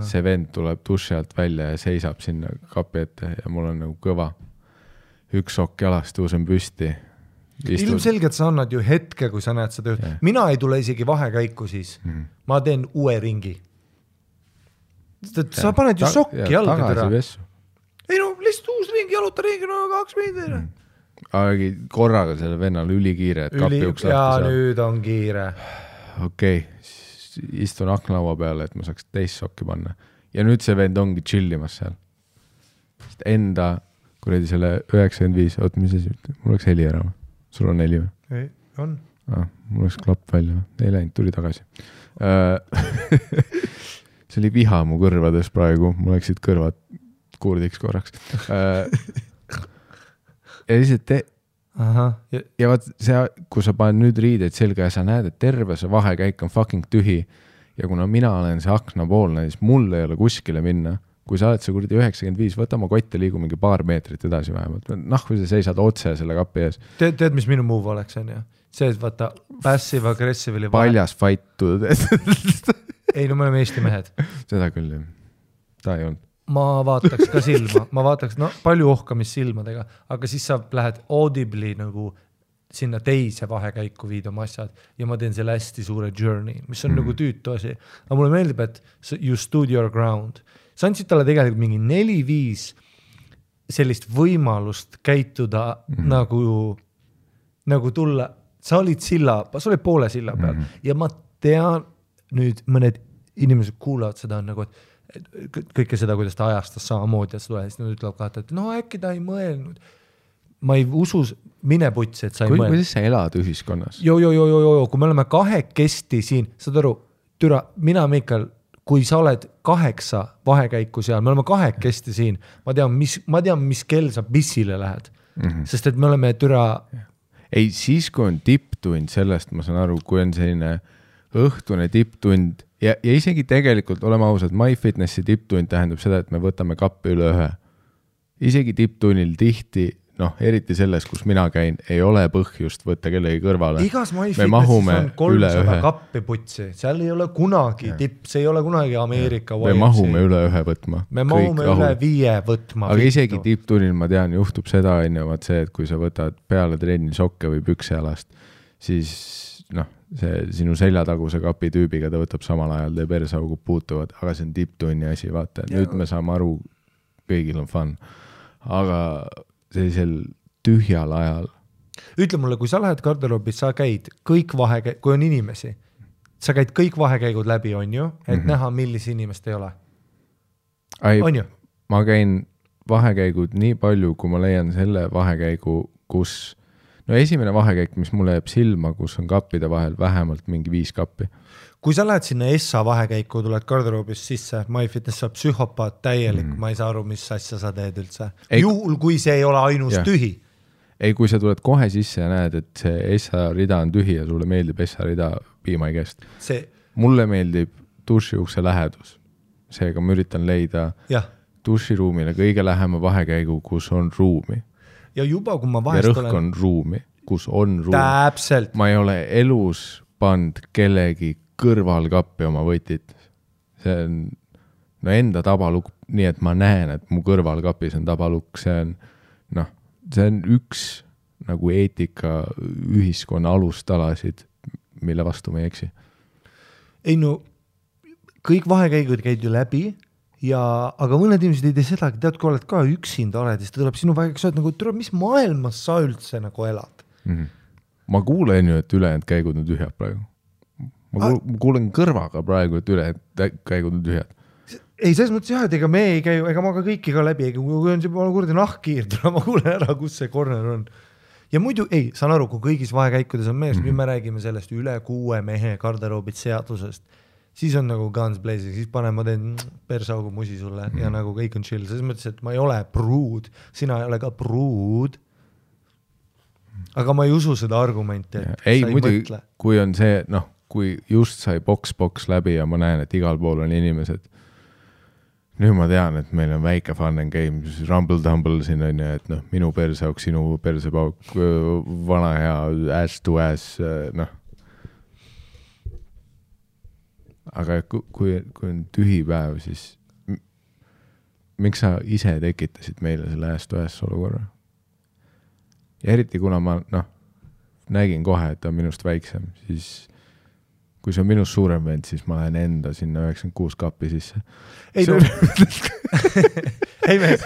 see vend tuleb duši alt välja ja seisab sinna kapi ette ja mul on nagu kõva. Üks sokk jalast tõusen püsti. Ilmselgelt sa annad ju hetke, kui sa näed seda. Yeah. Mina ei tule isegi vahekäiku siis. Ma teen uue ringi. Sa paned ju sokki jalga tõra. Ei lihtsalt uus ringi, jaluta ringi, 2 meetrit. Aga korraga selle vennal ülikiire, et kapi uks lahti saab. Ja nüüd on kiire. Okei, istun aknalaua peale, et ma saaks teist sokki panna. Ja nüüd see vend ongi chillimas seal. Enda, kuredi selle 95, mis asi, mul oleks heli ära. Sul on heli või? Ei, on. Mul oleks klapp välja. Ei läinud, tuli tagasi. See oli viha mu kõrvades praegu. Mul läksid kõrvad kuurdiks korraks. Ja lihtsalt ja vaat see, kui sa paned nüüd riideid selga ja sa näed, et terve see vahekäik on fucking tühi ja kuna mina olen see aknapoolne, siis mul ei ole kuskile minna. Kui sa oled see kurdi 95, võta oma kotte liigu mingi paar meetrit edasi vähemalt. Kui sa seisad otse selle kapi ees. Teed, mis minu move oleks, on ju? See, et vaata passive aggressive oli paljas fight. Ei, me oleme Eesti mehed. Seda küll, jah. Ta ei olnud. Ma vaataks ka silma, palju ohkamist silmadega, aga siis sa lähed audibly nagu sinna teise vahekäiku viid oma asjad ja ma teen selle hästi suure journey, mis on nagu tüütu asi. Aga mulle meeldib, et you stood your ground. Sa andsid talle tegelikult mingi 4-5 sellist võimalust käituda nagu tulla, sa olid poole silla peal ja ma tean nüüd mõned inimesed kuulavad seda nagu, et kõike seda, kuidas ta ajastas samamoodi, et nad ütlevad ka, et äkki ta ei mõelnud. Ma ei usu, mine putsi, et sa ei mõelnud. Kuidas sa elad ühiskonnas? Kui me oleme 2 siin, saad aru, mina, Mikael, kui sa oled 8 vahekäiku seal, me oleme 2 siin, ma tean, mis kell sa pissile lähed. Sest et me oleme Ei, siis kui on tipptund, sellest ma saan aru, kui on selline õhtune tipptund, ja isegi tegelikult, oleme ausad, MyFitnessi tipptund tähendab seda, et me võtame kappi üle 1. Isegi tipptunnil tihti, eriti selles, kus mina käin, ei ole põhjust võtta kellegi kõrvale. Igas MyFitnessis on 300 kappi putsi, seal ei ole kunagi tipp, see ei ole kunagi Ameerika me mahume üle ühe võtma. Me mahume üle 5 võtma. Aga isegi tipptunnil ma tean, juhtub seda, vaat see, et kui sa võtad peale trenni sokke või püksealast, siis see sinu seljataguse kapi tüübiga ta võtab samal ajal, teie persaugud puutuvad, aga see on tipptunni asi, vaata, nüüd me saame aru, kõigil on fun. Aga sellisel tühjal ajal. Ütle mulle, kui sa lähed garderoobis, sa käid kõik kui on inimesi, sa käid kõik vahekäigud läbi, on ju, et näha, millise inimest ei ole. On ju? Ma käin vahekäigud nii palju, kui ma leian selle vahekäigu, kus esimene vahekäik, mis mulle jääb silma, kus on kappide vahel vähemalt mingi 5 kappi. Kui sa lähed sinna Essa vahekäiku, tuled garderoobis sisse, MyFitness saab psühhopaat täielik, ma ei saa aru, mis asja sa teed üldse. Juhul, kui see ei ole ainus tühi. Ei, kui sa tuled kohe sisse ja näed, et see Essa rida on tühi ja sulle meeldib Essa rida piimaigest. Mulle meeldib dušiukse lähedus. Seega ma üritan leida duširuumile kõige lähema vahekäigu, kus on ruumi. Ja juba, kui ma vahest olen... Ja rõhk on ruumi, kus on ruumi. Täpselt. Ma ei ole elus pand kellegi kõrvalkappi oma võtit. See on enda tabalukk, nii et ma näen, et mu kõrvalkapis on tabalukk. See on üks nagu eetika ühiskonna alustalasid, mille vastu ma ei eksi. Ei kõik vahekäigud käid ju läbi. Aga mõned inimesed ei tee sedagi, tead, kui oled ka üksinda oled, siis ta tuleb sinu väikeks, et mis maailmas sa üldse nagu elad? Ma kuulen ju, et ülejäänud käigud on tühjad praegu. Ma kuulen kõrvaga praegu, et ülejäänud käigud on tühjad. Ei, selles mõttes et ega me ei käi, ega ma ka kõiki ka läbi, kui on see kurdi nahkkiir, ma kuulen ära, kus see corner on. Ja muidu, saan aru, kui kõigis vahekäikudes on mees, nüüd me räägime sellest üle 6 mehe garderoobid seadusest. Siis on nagu guns blazing, siis ma teen persaugu musi sulle ja nagu kõik on chill. Selles mõttes, et ma ei ole pruud, sina ei ole ka pruud. Aga ma ei usu seda argumenti, et ei, muidu, kui on see, kui just sai boks läbi ja ma näen, et igal pool on inimesed. Nüüd ma tean, et meil on väike fun and game, rumble-tumble siin on ja, et minu persauk, sinu persepauk, vana hea ass to ass, Aga kui on tühi päev, siis miks sa ise tekitasid meile selle ass-to-ass olukorra? Ja eriti kuna ma nägin kohe, et ta on minust väiksem, siis kui see on minust suurem vend, siis ma lähen enda sinna 96 kappi sisse. Ei mees,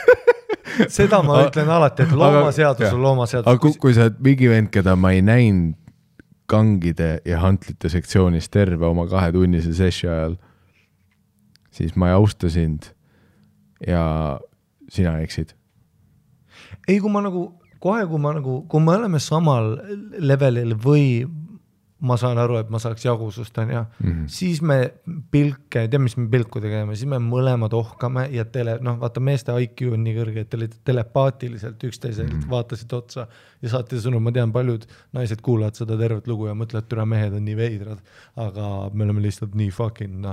seda ma ütlen alati, et loomaseadus on loomaseadus. Aga kui sa oled mingi vend, keda ma ei näinud kangide ja hantlite sektsioonis terve oma 2-tunnise sessi ajal, siis ma ei austa sind ja sina eksid. Ei, kui ma kui me oleme samal levelil või ma saan aru, et ma saaks jagusust, siis me mis me pilku tegeme, siis me mõlemad ohkame ja vaata meeste IQ on nii kõrge, et telepaatiliselt üksteiselt vaatasid otsa ja saate sõnum, ma tean, paljud naised kuulavad seda tervet lugu ja mõtlevad, et mehed on nii veidrad, aga me oleme lihtsalt nii fucking,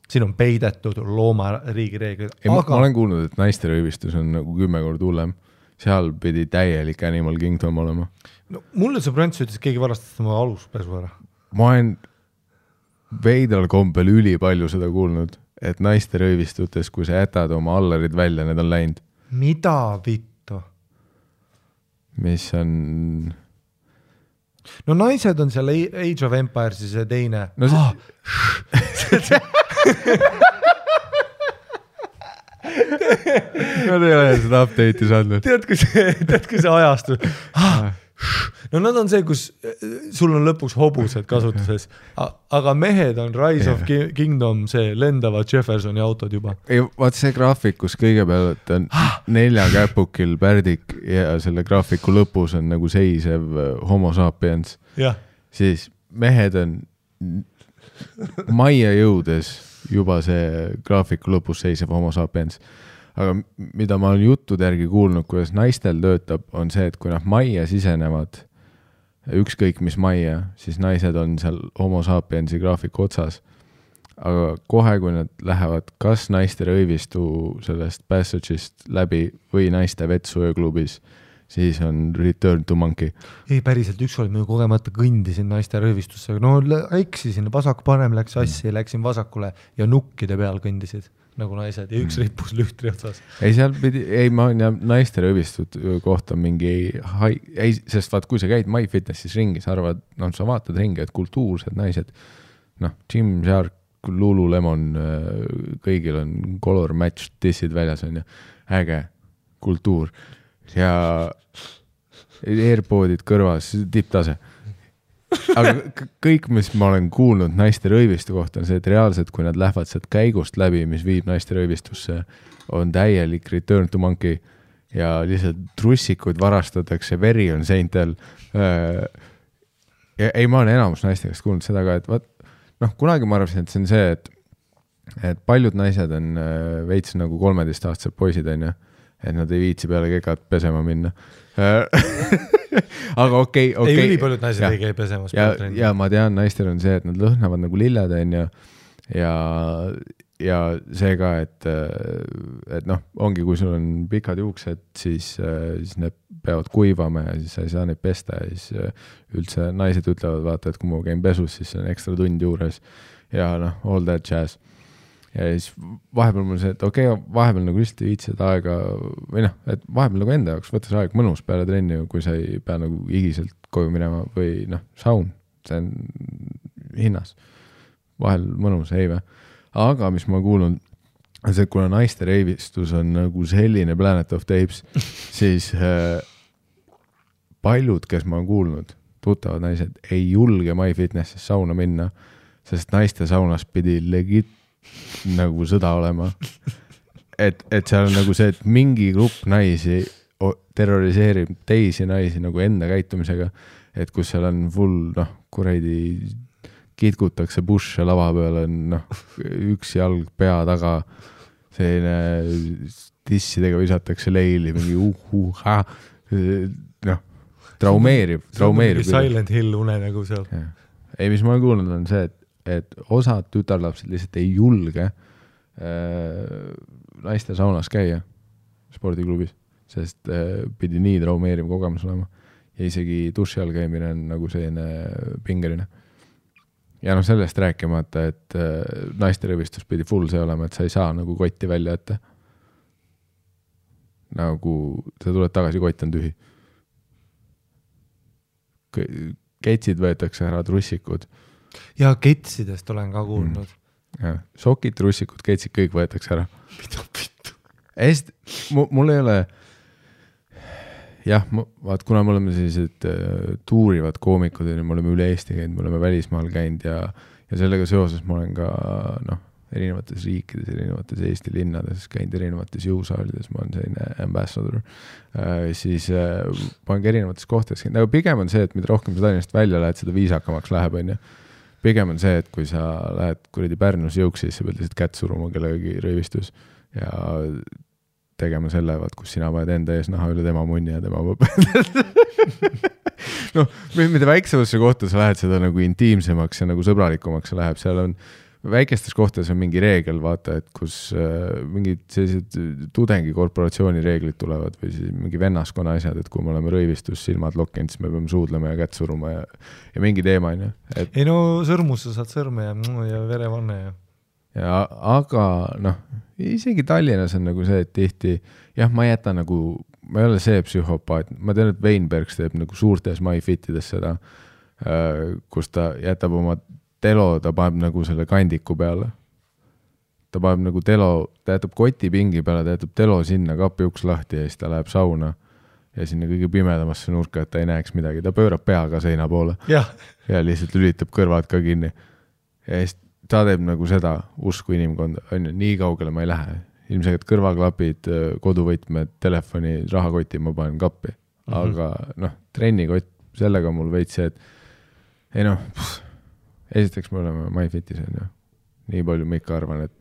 siin on peidetud loomariigi reeglid. Ma olen kuulnud, et naiste röövistus on nagu 10 korda hullem. Seal pidi täielik Animal Kingdom olema. Mulle see Prants ütles, et keegi varastas oma aluspesu ära. Ma olen veidral kombel üli palju seda kuulnud, et naiste röövistutes, kui sa jätad oma allarid välja, need on läinud. Mida vittu? Mis on... naised on seal Age of Empires ja see teine. Nad ei ole seda update'i saanud. Tead, kui see ajastu... nad on see, kus sul on lõpuks hobused kasutuses, aga mehed on Rise of Kingdom, see lendavad Jeffersoni autod juba. Ei, vaat see graafik, kus kõigepealt on 4 käpukil pärdik ja selle graafiku lõpus on nagu seisev homo sapiens, siis mehed on majja jõudes juba see graafiku lõpus seisev homo sapiens. Aga mida ma olen juttude järgi kuulnud, kuidas naistel töötab, on see, et kui nad majja sisenevad, ükskõik mis majja, siis naised on seal homo sapiensi graafiku otsas. Aga kohe, kui nad lähevad kas naiste röövistu sellest passage'ist läbi või naiste vetsuööklubis, siis on Return to Monkey. Ei, päriselt ükskord ma kogemata kõndisin naiste röövistusse, no eksisin, vasak parem läks assi, läksin vasakule ja nukkide peal kõndisid nagu naised ja üks rippus lühtri otsas. Ei, seal pidi, ei, ma olen naiste röövistud kohta mingi, ei, sest vaat, kui sa käid MyFitnessis ringis, arvad, no sa vaatad ringi, et kultuursed naised, Gymshark, Lululemon, kõigil on color match dissid väljas on ja äge kultuur ja AirPodid kõrvas, tipptase. Aga kõik, mis ma olen kuulnud naiste röövistu kohta on see, et reaalselt, kui nad lähevad sealt käigust läbi, mis viib naiste röövistusse, on täielik Return to Monkey ja lihtsalt trussikud varastatakse, veri on seintel. Ei, ma olen enamus naiste käest kuulnud seda ka, et kunagi ma arvasin, et see on see, et paljud naised on veits nagu 13-aastased poisid on ju, et nad ei viitsi peale kegat pesema minna. Aga okei. Ei, ülipaljud naised ei käi pesemas. Ja ma tean, naistel on see, et nad lõhnavad nagu lilled on ja see ka, et ongi, kui sul on pikad juuksed, siis need peavad kuivama ja siis sa ei saa neid pesta ja siis üldse naised ütlevad, vaata, et kui ma käin pesus, siis on ekstra tund juures ja all that jazz. Ja siis vahepeal mul see, et vahepeal nagu lihtsalt viitsid aega või et vahepeal nagu enda jaoks võttes aeg mõnus peale trenni, kui sa ei pea nagu higiselt koju minema või saun, see on hinnas. Vahel mõnus, ei või. Aga mis ma kuulun, see, kuna naiste reivistus on nagu selline Planet of the Apes, siis paljud, kes ma olen kuulnud, tuttavad naised, ei julge MyFitnessis sauna minna, sest naiste saunas pidi legit nagu sõda olema. Et seal on nagu see, et mingi grupp naisi terroriseerib teisi naisi nagu enda käitumisega, et kus seal on full, kuradi kitkutakse busse lava peal on üks jalg pea taga, selline tissidega visatakse leili, mingi traumeerib. Silent Hill une nagu seal. Ei, mis ma olen kuulnud on see, et osad tütarlapsed lihtsalt ei julge naiste saunas käia spordiklubis, sest pidi nii traumeeriv kogemus olema ja isegi duši all käimine on nagu selline pingeline. Ja sellest rääkimata, et naiste röövistus pidi full see olema, et sa ei saa nagu kotti välja ette. Nagu sa tuled tagasi, kott on tühi. Ketsid võetakse ära, trussikud. Ja ketsidest olen ka kuulnud. Sokid, trussikud, ketsid, kõik võetakse ära. Pitu. Mul ei ole, vaat kuna me oleme sellised tuurivad koomikud, me oleme üle Eesti käinud, me oleme välismaal käinud ja sellega seoses ma olen ka erinevates riikides, erinevates Eesti linnades käinud, erinevates jõusaalides, ma olen selline ambassador, siis ma olen ka erinevates kohtades käinud, aga pigem on see, et mida rohkem sa Tallinnast välja lähed, seda viisakamaks läheb, on ju. Pigem on see, et kui sa lähed kuradi Pärnus jõuksi, siis sa pead lihtsalt kätt suruma kellegagi röövistus ja tegema selle, kus sina paned enda ees naha üle tema munni ja tema mida väiksemasse kohta sa lähed, seda nagu intiimsemaks ja nagu sõbralikumaks sa läheb, seal on väikestes kohtades on mingi reegel, vaata, et kus mingid sellised tudengikorporatsiooni reeglid tulevad või siis mingi vennaskonna asjad, et kui me oleme röövistus, silmad lokkinud, siis me peame suudlema ja kätt suruma ja mingi teema on ju. Ei sõrmus sa saad sõrme ja verevanne ja aga isegi Tallinnas on nagu see, et tihti, ma jätan nagu, ma ei ole see psühhopaat, ma tean, et Weinbergs teeb nagu suurtes MyFitides seda, kus ta jätab oma telo, ta paneb nagu selle kandiku peale. Ta paneb nagu telo, ta jätab kotipingi peale, ta jätab telo sinna, kapi uks lahti ja siis ta läheb sauna ja sinna kõige pimedamasse nurka, et ta ei näeks midagi. Ta pöörab peaga seina poole ja lihtsalt lülitab kõrvad ka kinni. Ja siis ta teeb nagu seda usku inimkonda. Nii kaugele ma ei lähe. Ilmselt kõrvaklapid, koduvõtmed, telefoni, rahakoti ma panen kappi. Aga trennikott, sellega mul veits see, et esiteks me oleme MyFitis on ju. Nii palju ma ikka arvan, et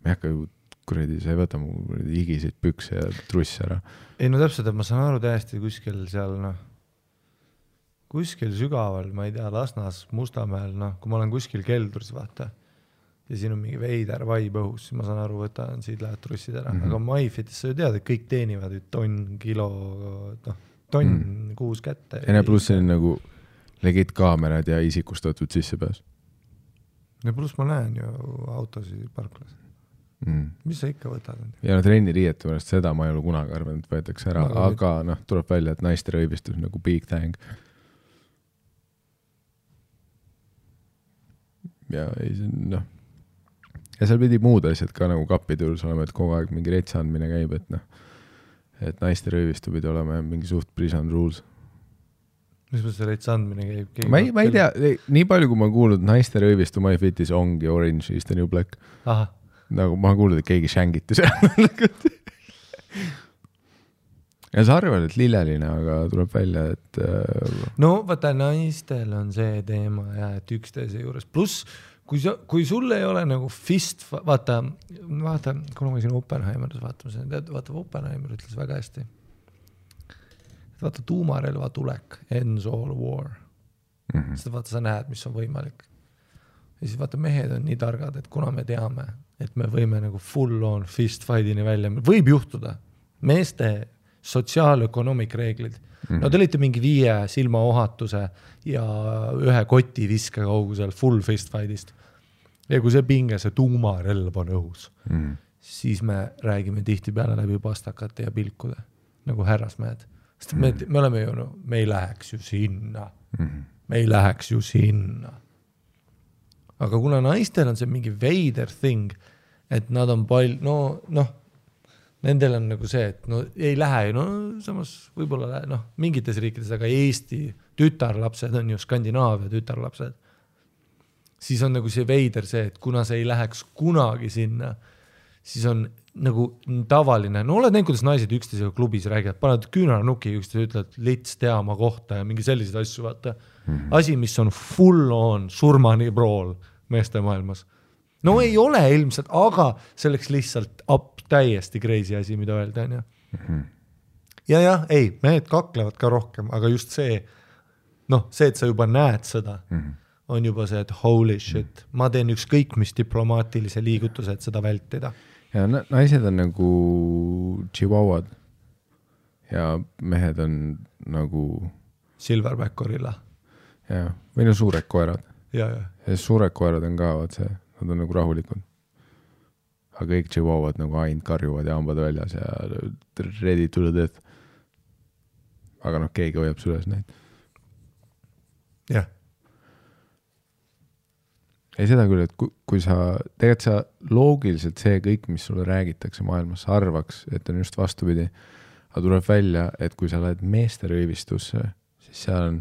me ei hakka ju kuradi, sa ei võta mu higiseid pükse ja truss ära. Ei täpselt, et ma saan aru täiesti kuskil seal kuskil sügaval, ma ei tea, Lasnas, Mustamäel, kui ma olen kuskil keldris, vaata, ja siin on mingi veider vaib õhus, siis ma saan aru, võtan siit lähed trussid ära. Aga MyFitis sa ju tead, et kõik teenivad tonn, kilo, tonn kuus kätte. Ja pluss see on nagu legit kaamerad ja isikustatud sissepääs. Ja pluss ma näen ju autosid parklas. Mis sa ikka võtad? Ja trenniriiete pärast seda ma ei ole kunagi arvanud, võetakse ära, aga tuleb välja, et naiste rõivistus nagu big thing. Ja seal pidi muud asjad ka nagu kapitulus olema, et kogu aeg mingi retsa andmine käib, et naiste rõivistu pidi olema mingi suht prison rules. Mis see retsa andmine käib? Ma ei tea, nii palju kui ma kuulnud, naiste rõivistu My Fitis ongi Orange is the New Black. Aha. Nagu ma kuulnud, et keegi shängiti seal. Ja sa arvad, et lilleline, aga tuleb välja, et... No vaata, naistel on see teema ja et üksteise juures. Plus, kui sul ei ole nagu fist... Vaata, kuna ma siin Oppenheimeris vaata, Oppenheimer ütles väga hästi. Vaata, tuumarelva tulek, ends all war. Seda vaata, sa näed, mis on võimalik. Ja siis vaata, mehed on nii targad, et kuna me teame, et me võime nagu full on fist fight'ini välja, võib juhtuda. Meeste sotsiaalökonomik reeglid. No te olite mingi 5 silmaohatuse ja 1 koti viske kaugusel full fist fight'ist. Ja kui see pinge, see tuumarelv on õhus, siis me räägime tihti peale läbi pastakate ja pilkude, nagu härrasmehed. Sest me oleme ju, me ei läheks ju sinna. Me ei läheks ju sinna. Aga kuna naistel on see mingi veider thing, et nad on nendel on nagu see, et ei lähe, samas võib-olla mingites riikides, aga Eesti tütarlapsed on ju Skandinaavia tütarlapsed. Siis on nagu see veider see, et kuna see ei läheks kunagi sinna, siis on nagu tavaline. No oled näinud, kuidas naised üksteisega klubis räägivad, paned küünarnuki üksteise, ütled lits tea oma kohta ja mingi sellised asju, vaata. Asi, mis on full on surmani prool meeste maailmas. No ei ole ilmselt, aga selleks lihtsalt täiesti crazy asi, mida öelda on ju. Ja, ei, mehed kaklevad ka rohkem, aga just see, see, et sa juba näed seda, on juba see, et holy shit, ma teen ükskõik mis diplomaatilise liigutuse, et seda vältida. Ja naised on nagu chihuahuad ja mehed on nagu Silverback gorilla. Ja, või suured koerad. Ja suured koerad on ka, nad on nagu rahulikud. Aga kõik chihuahuad nagu ainult karjuvad ja hambad väljas ja ready to the death. Aga keegi hoiab süles neid. Jah. Ei seda küll, et kui sa, tegelikult sa loogiliselt see kõik, mis sulle räägitakse maailmas, arvaks, et on just vastupidi. Aga tuleb välja, et kui sa lähed meeste rõivistusse, siis seal on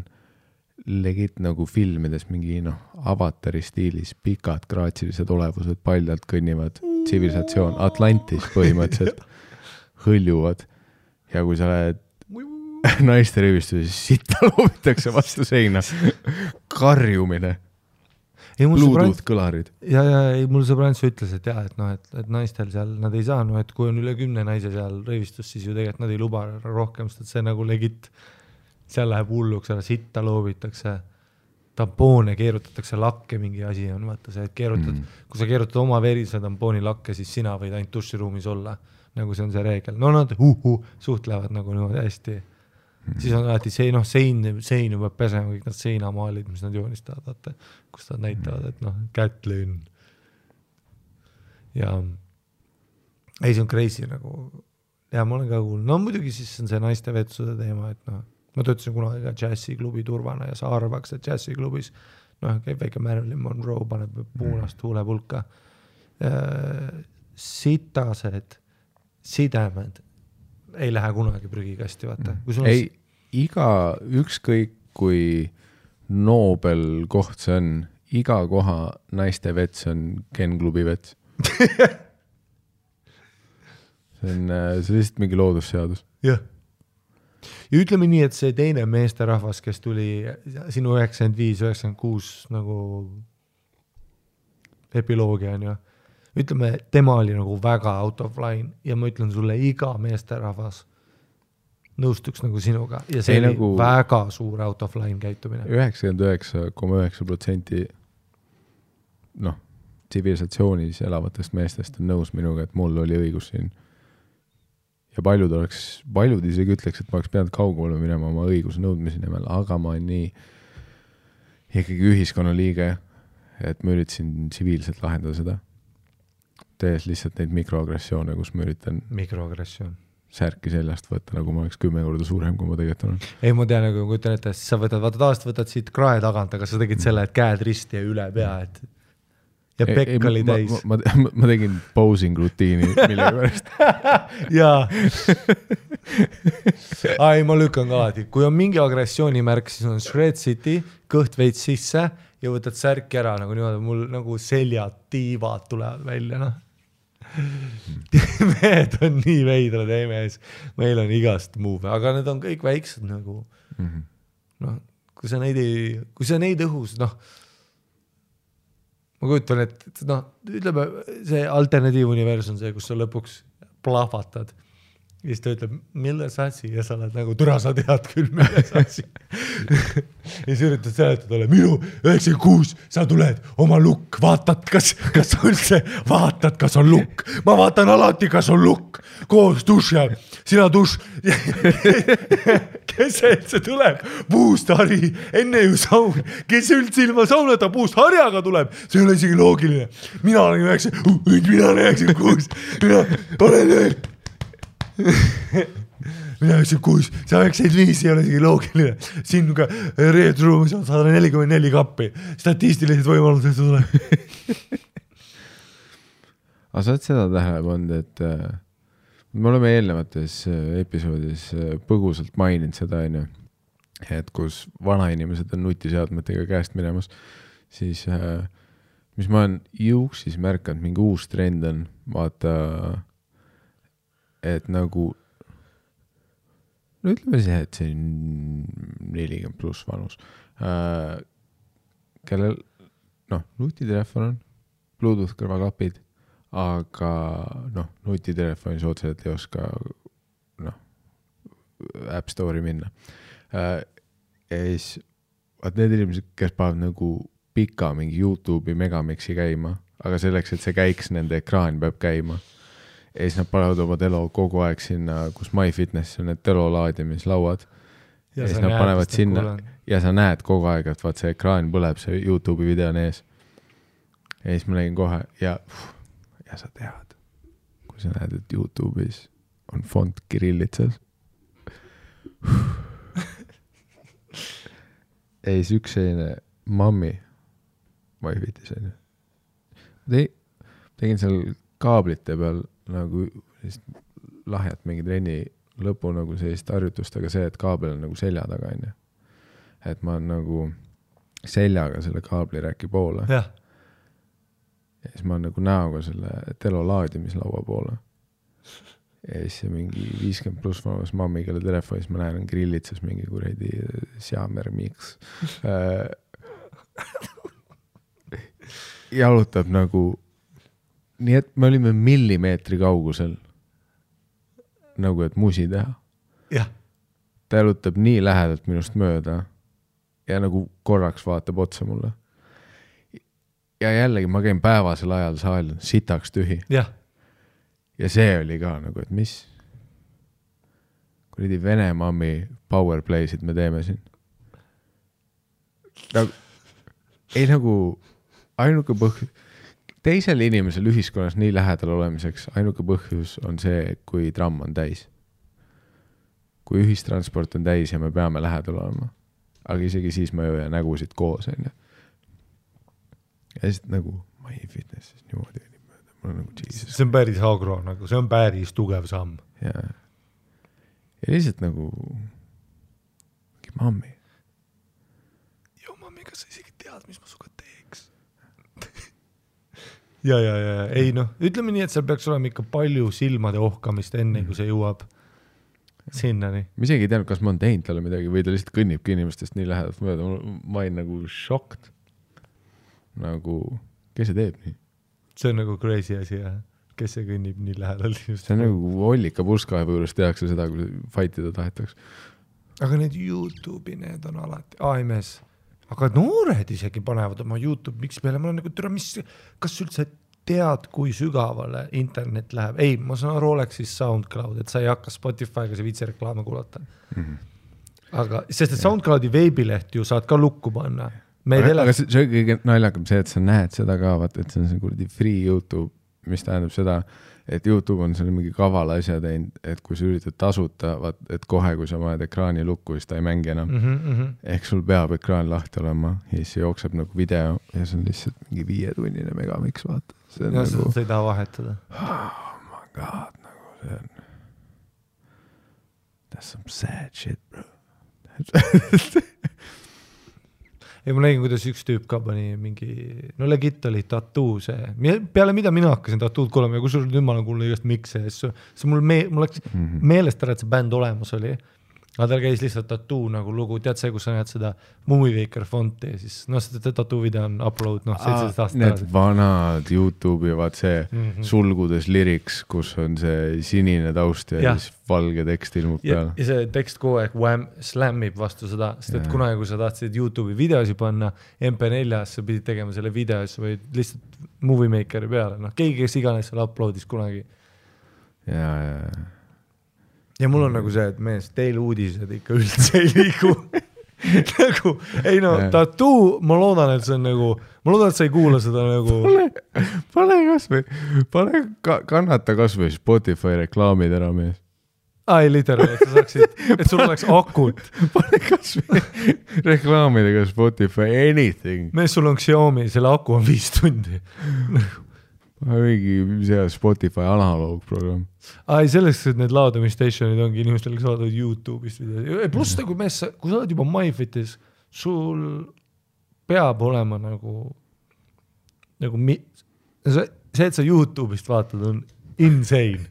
legit nagu filmides mingi Avatari stiilis pikad graatsilised olevused paljalt kõnnivad tsivilisatsioon, Atlantis põhimõtteliselt hõljuvad ja kui sa lähed naiste rõivistusse, siis sitta loobitakse vastu seina karjumine Bluetooth kõlarid. Ja mul sõbrants ütles, et et naistel seal nad ei saa, et kui on üle 10 naise seal rõivistus, siis ju tegelikult nad ei luba rohkem, sest see nagu legit seal läheb hulluks, sitta loobitakse, tampoone keerutatakse lakke, mingi asi on, vaata see, et kui sa keerutad oma verise tampooni lakke, siis sina võid ainult duširuumis olla, nagu see on see reegel. No nad suhtlevad nagu niimoodi hästi. Siis on alati sein juba pesema, kõik nad seinamaalid, mis nad joonistavad, vaata, kus nad näitavad, et Kätlin. Ja ei, see on crazy nagu, ja ma olen ka kuulnud, muidugi siis on see naiste vetsude teema, et ma töötasin kunagi ka džässiklubi turvana ja sa arvaks, et džässiklubis käib väike Marilyn Monroe, paneb puunast huulepulka. Sitased sidemed ei lähe kunagi prügikasti, vaata. Ei, iga ükskõik kui Nobel koht see on, iga koha naiste vets on Ken klubi vets. See on lihtsalt mingi loodusseadus. Jah. Ja ütleme nii, et see teine meesterahvas, kes tuli sinu 95-96 nagu epiloogia on ju, ütleme, tema oli nagu väga out of line ja ma ütlen sulle, iga meesterahvas nõustuks nagu sinuga ja see oli nagu väga suur out of line käitumine. 99,9% tsivilisatsioonis elavatest meestest on nõus minuga, et mul oli õigus siin. ja paljud isegi ütleks, et ma oleks pidanud kaugemale minema oma õiguse nõudmise nimel, aga ma olen nii ikkagi ühiskonna liige, et ma üritasin tsiviilselt lahendada seda. Tees lihtsalt neid mikroagressioone, kus ma üritan särki seljast võtta, nagu ma oleks 10 korda suurem, kui ma tegelikult olen. Ei, ma tean, nagu kui ütlen, et sa võtad siit krae tagant, aga sa tegid selle, et käed risti ja üle pea, et ja pekk oli täis. Ma tegin posing rutiini, mille pärast. Jaa. Ai, ma lükkan ka alati. Kui on mingi agressioonimärk, siis on Shred City, kõht veits sisse ja võtad särki ära, nagu niimoodi, mul nagu seljad, tiivad tulevad välja, noh. Mehed on nii veidrad, ei mees. Meil on igast move, aga need on kõik väiksed nagu. Noh, kui sa neid õhus, noh, ma kujutan, et noh, ütleme, see alternatiivuniversum, see, kus sa lõpuks plahvatad. Ja siis ta ütleb, milles asi? Ja sa oled nagu, türa sa tead küll, milles asi. Ja siis üritad seletada ole, minu 96, sa tuled oma lukk, vaatad, kas üldse vaatad, kas on lukk. Ma vaatan alati, kas on lukk. Koos duši all, sina duš. Kes see tuleb? Puust Hari, enne ju saun. Kes üldse ilma saunata puust Harjaga tuleb? See ei ole isegi loogiline. Mina olen 96, mina olen veel. Mina 96, sa 95 ei ole isegi loogiline. Siin ka reedruumis on 144 kappi. Statistilised võimalused tuleb. Aga sa oled seda tähele pannud, et me oleme eelnevates episoodis põgusalt maininud seda, et kus vanainimesed on nutiseadmetega käest minemas, siis mis ma olen juuksis märkanud, mingi uus trend on, vaata, et nagu, no ütleme see, et see on 40 pluss vanus, kellel, noh, nutitelefon on, Bluetooth kõrvaklapid, aga noh, nutitelefonis otseselt ei oska, noh, App Store'i minna. Ja siis, vaat need inimesed, kes paavad nagu pika mingi YouTube'i megamixi käima, aga selleks, et see käiks, nende ekraan peab käima. Ja siis nad panevad oma telo kogu aeg sinna, kus MyFitness on need telo laadimislauad. Ja siis nad panevad sinna ja sa näed kogu aeg, et vaat see ekraan põleb, see YouTube'i video on ees. Ja siis ma nägin kohe ja sa tead, kui sa näed, et YouTube'is on font kirillitsas. Ja siis üks selline mammi MyFitness on. Tegin seal kaablite peal nagu lahjat mingi trenni lõpu nagu sellist harjutust, aga see, et kaabel on nagu selja taga, et ma olen nagu seljaga selle kaabliräki poole. Ja siis ma olen nagu näoga selle telo laadimislaua poole. Ja siis see mingi 50 pluss vanus mammi, kelle telefonis ma näen on grillitsas mingi kuredi Xiaomi Mix. Jalutab nagu nii, et me olime millimeetri kaugusel nagu, et musi teha. Ja. Ta jalutab nii lähedalt minust mööda ja nagu korraks vaatab otsa mulle. Ja jällegi ma käin päevasel ajal saal sitaks tühi. Ja. Ja see oli ka nagu, et mis kuradi Vene mammi powerplaysid me teeme siin. Nagu, ei nagu ainuke põhjus, teisel inimesel ühiskonnas nii lähedal olemiseks ainuke põhjus on see, kui tramm on täis. Kui ühistransport on täis ja me peame lähedal olema. Aga isegi siis ma jõuan nägusid koos. Ja siis nagu MyFitness niimoodi. Nagu see on päris agro, nagu see on päris tugev samm. Ja lihtsalt nagu mammi. Jo, mammi, kas sa isegi tead, mis ma suga teeks? Ja. Ei noh, ütleme nii, et seal peaks olema ikka palju silmade ohkamist enne, kui see jõuab sinnani. Ma isegi ei teadnud, kas ma on teinud talle midagi või ta lihtsalt kõnnibki inimestest nii lähedalt mööda. Ma olin nagu šokt. Nagu, kes see teeb nii? See on nagu crazy asi, jah. Kes see kõnnib nii lähedalt? See on nagu Ollika purskaevu juures tehakse seda, kui fightida tahetaks. Aga need YouTube'i, need on alati AMS. Aga noored isegi panevad oma YouTube, miks peale, ma olen nagu, kas üldse tead, kui sügavale internet läheb. Ei, ma saan aru, oleks siis SoundCloud, et sa ei hakka Spotify'ga see viitsi reklaame kuulata. Aga, sest et SoundCloudi veebileht ju saad ka lukku panna. Aga see kõige naljakam see, et sa näed seda ka, vaata, et see on see kuradi free YouTube, mis tähendab seda, et YouTube on selle mingi kavala asja teinud, et kui sa üritad tasuta, vaat, et kohe, kui sa paned ekraani lukku, siis ta ei mängi enam. Ehk sul peab ekraan lahti olema ja siis jookseb nagu video ja see on lihtsalt mingi 5-tunnine megamix, vaata. Ja nagu, seda sa ei taha vahetada. Oh my god, nagu see on. That's some sad shit, bro. Ja ma nägin, kuidas üks tüüp ka pani mingi, no legit oli tattoo see. Peale mida mina hakkasin tattood kuulema ja kui sul nüüd ma olen kuulnud igast mikse, see mul läks meelest ära, et see bänd olemas oli. Aga tal käis lihtsalt tattoo nagu lugu, tead see, kus sa näed seda Moviewaker fonti ja siis, no see tattoo video on upload, 17 aastat. Need vanad YouTube'i, vaat see sulgudes lyrics, kus on see sinine taust ja siis valge tekst ilmub peale. Ja see tekst kogu aeg slammib vastu seda, sest et kunagi, kui sa tahtsid YouTube'i videosi panna, MP4-s sa pidid tegema selle videos või lihtsalt Moviemakeri peale, noh, keegi, kes iganes seal uploadis kunagi. Ja mul on nagu see, et mees, teil uudised ikka üldse ei liigu. Nagu, ei no, tattoo, ma loodan, et see on nagu, ma loodan, et sa ei kuula seda nagu. Pane kasvõi, kannata kasvõi Spotify reklaamid ära, mees. Ai, literally, et sa saaksid, et sul oleks akut. Pane kasvõi reklaamidega Spotify, anything. Mees, sul on Xiaomi, selle aku on 5 tundi. Mingi see Spotify analoogprogramm. Ai, selleks, et need laadamistationid ongi inimestel, kes vaatavad YouTube'ist video. Pluss nagu mees, kui sa oled juba MyFitis, sul peab olema nagu see, et sa YouTube'ist vaatad, on insane.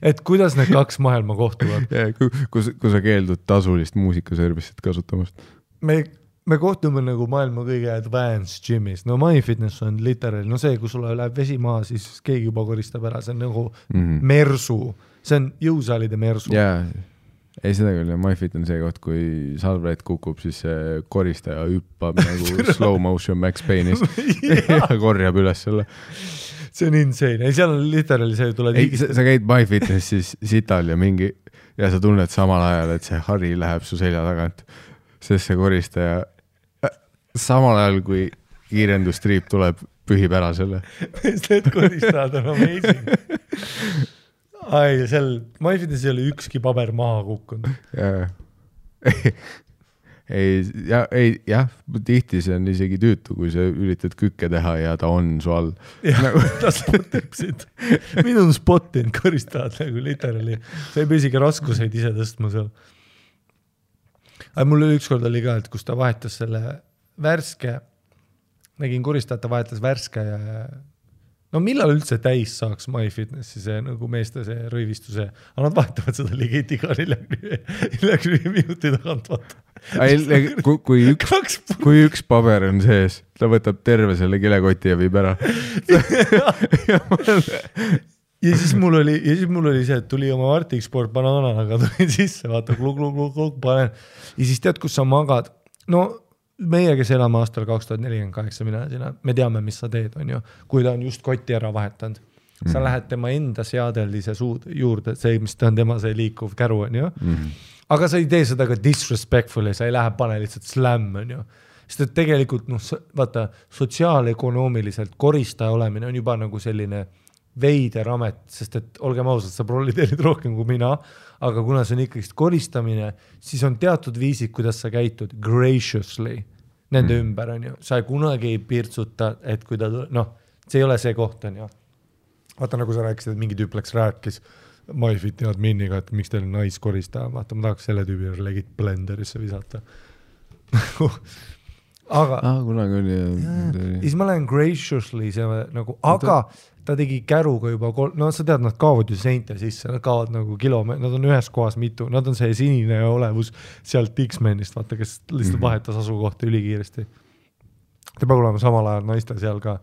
Et kuidas need 2 maailma kohtuvad? Kui sa keeldud tasulist muusikaservisit kasutamast. Me kohtume nagu maailma kõige advanced gymis. No MyFitness on literally, no see, kui sulle läheb vesi maha, siis keegi juba koristab ära. See on nagu mersu. See on jõusaalide mersu. Jaa, ei seda küll. MyFit on see koht, kui salvrätt kukub, siis see koristaja hüppab nagu slow motion Max Payne'is ja korjab üles selle. See on insane. Ei, seal on literally see, tuleb sa käid MyFitnessis sital ja sa tunned samal ajal, et see hari läheb su selja tagant. Sest see koristaja samal ajal, kui kiirendustriip tuleb, pühib ära selle. Need koristajad on amazing. Ai, seal MyFitness ei ole ükski paber maha kukkunud. Jah, tihti see on isegi tüütu, kui sa üritad kükke teha ja ta on su all. Ta spotib sind. Minu on spottinud koristajad nagu literally. Sa ei pea isegi raskuseid ise tõstma seal. Aga mul ükskord oli ka, et kus ta vahetas selle värske, nägin koristajata vahetas värske ja no millal üldse täis saaks MyFitnessi see nagu meeste see rõivistuse, aga nad vahetavad seda ligit iga 45 minuti tagant vaata. Kui üks paber on sees, ta võtab terve selle kilekoti ja viib ära. Ja siis mul oli see, et tuli oma Arctic Sport banaanaga, tulin sisse, vaata, klug, panen. Ja siis tead, kus sa magad. No meie, kes elame aastal 2048, me teame, mis sa teed, on ju. Kui ta on just kotti ära vahetanud. Sa lähed tema enda seadeldise juurde, see, mis ta on tema see liikuv käru, on ju. Aga sa ei tee seda ka disrespectfully, sa ei lähe pane lihtsalt slam, on ju. Sest et tegelikult, vaata, sotsiaalökonoomiliselt koristaja olemine on juba nagu selline veider amet, sest et olgem ausad, sa proliteerid rohkem kui mina, aga kuna see on ikkagi koristamine, siis on teatud viisid, kuidas sa käitud graciously nende ümber, on ju. Sa kunagi ei pirtsuta, et kui ta, see ei ole see koht, on ju. Vaata, nagu sa rääkisid, et mingi tüüp läks rääkis MyFiti adminiga, et miks teil naiskoristaja, vaata, ma tahaks selle tüübi legit blenderisse visata. Aga kunagi oli siis ma lähen graciously nagu, aga ta tegi käruga juba sa tead, nad kaovad ju seinte sisse, nad kaovad nagu kilomeetri, nad on ühes kohas mitu, nad on see sinine olevus sealt X-Menist, vaata, kes lihtsalt vahetas asukohta ülikiiresti. Ta peab olema samal ajal naiste seal ka.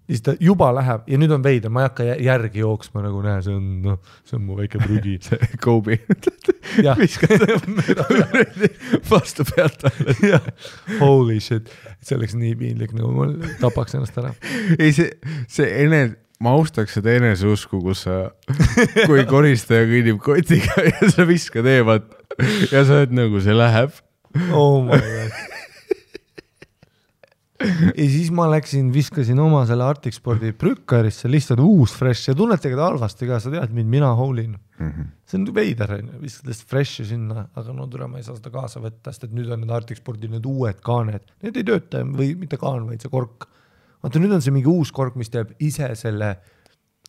siis ta juba läheb ja nüüd on veider, ma ei hakka järgi jooksma nagu näe, see on mu väike prügi. see Kobe. Viskad vastu pealt alla. Holy shit, see oleks nii piinlik, nagu ma tapaks ennast ära. Ei, ma austaks seda eneseusku, kus sa, kui koristaja kõnnib kotiga ja sa viskad eemalt ja sa oled nagu, see läheb. Oh my god. Ja siis ma viskasin oma selle Arctic Spordi prükkarisse, lihtsalt uus fresh ja tunnete ka halvasti ka, sa tead mind, mina hoolin. See on veider, viskad lihtsalt freshi sinna, aga no tule ma ei saa seda kaasa võtta, sest et nüüd on need Arctic Spordi need uued kaaned, need ei tööta või mitte kaan, vaid see kork. Vaata, nüüd on see mingi uus kork, mis teeb ise selle,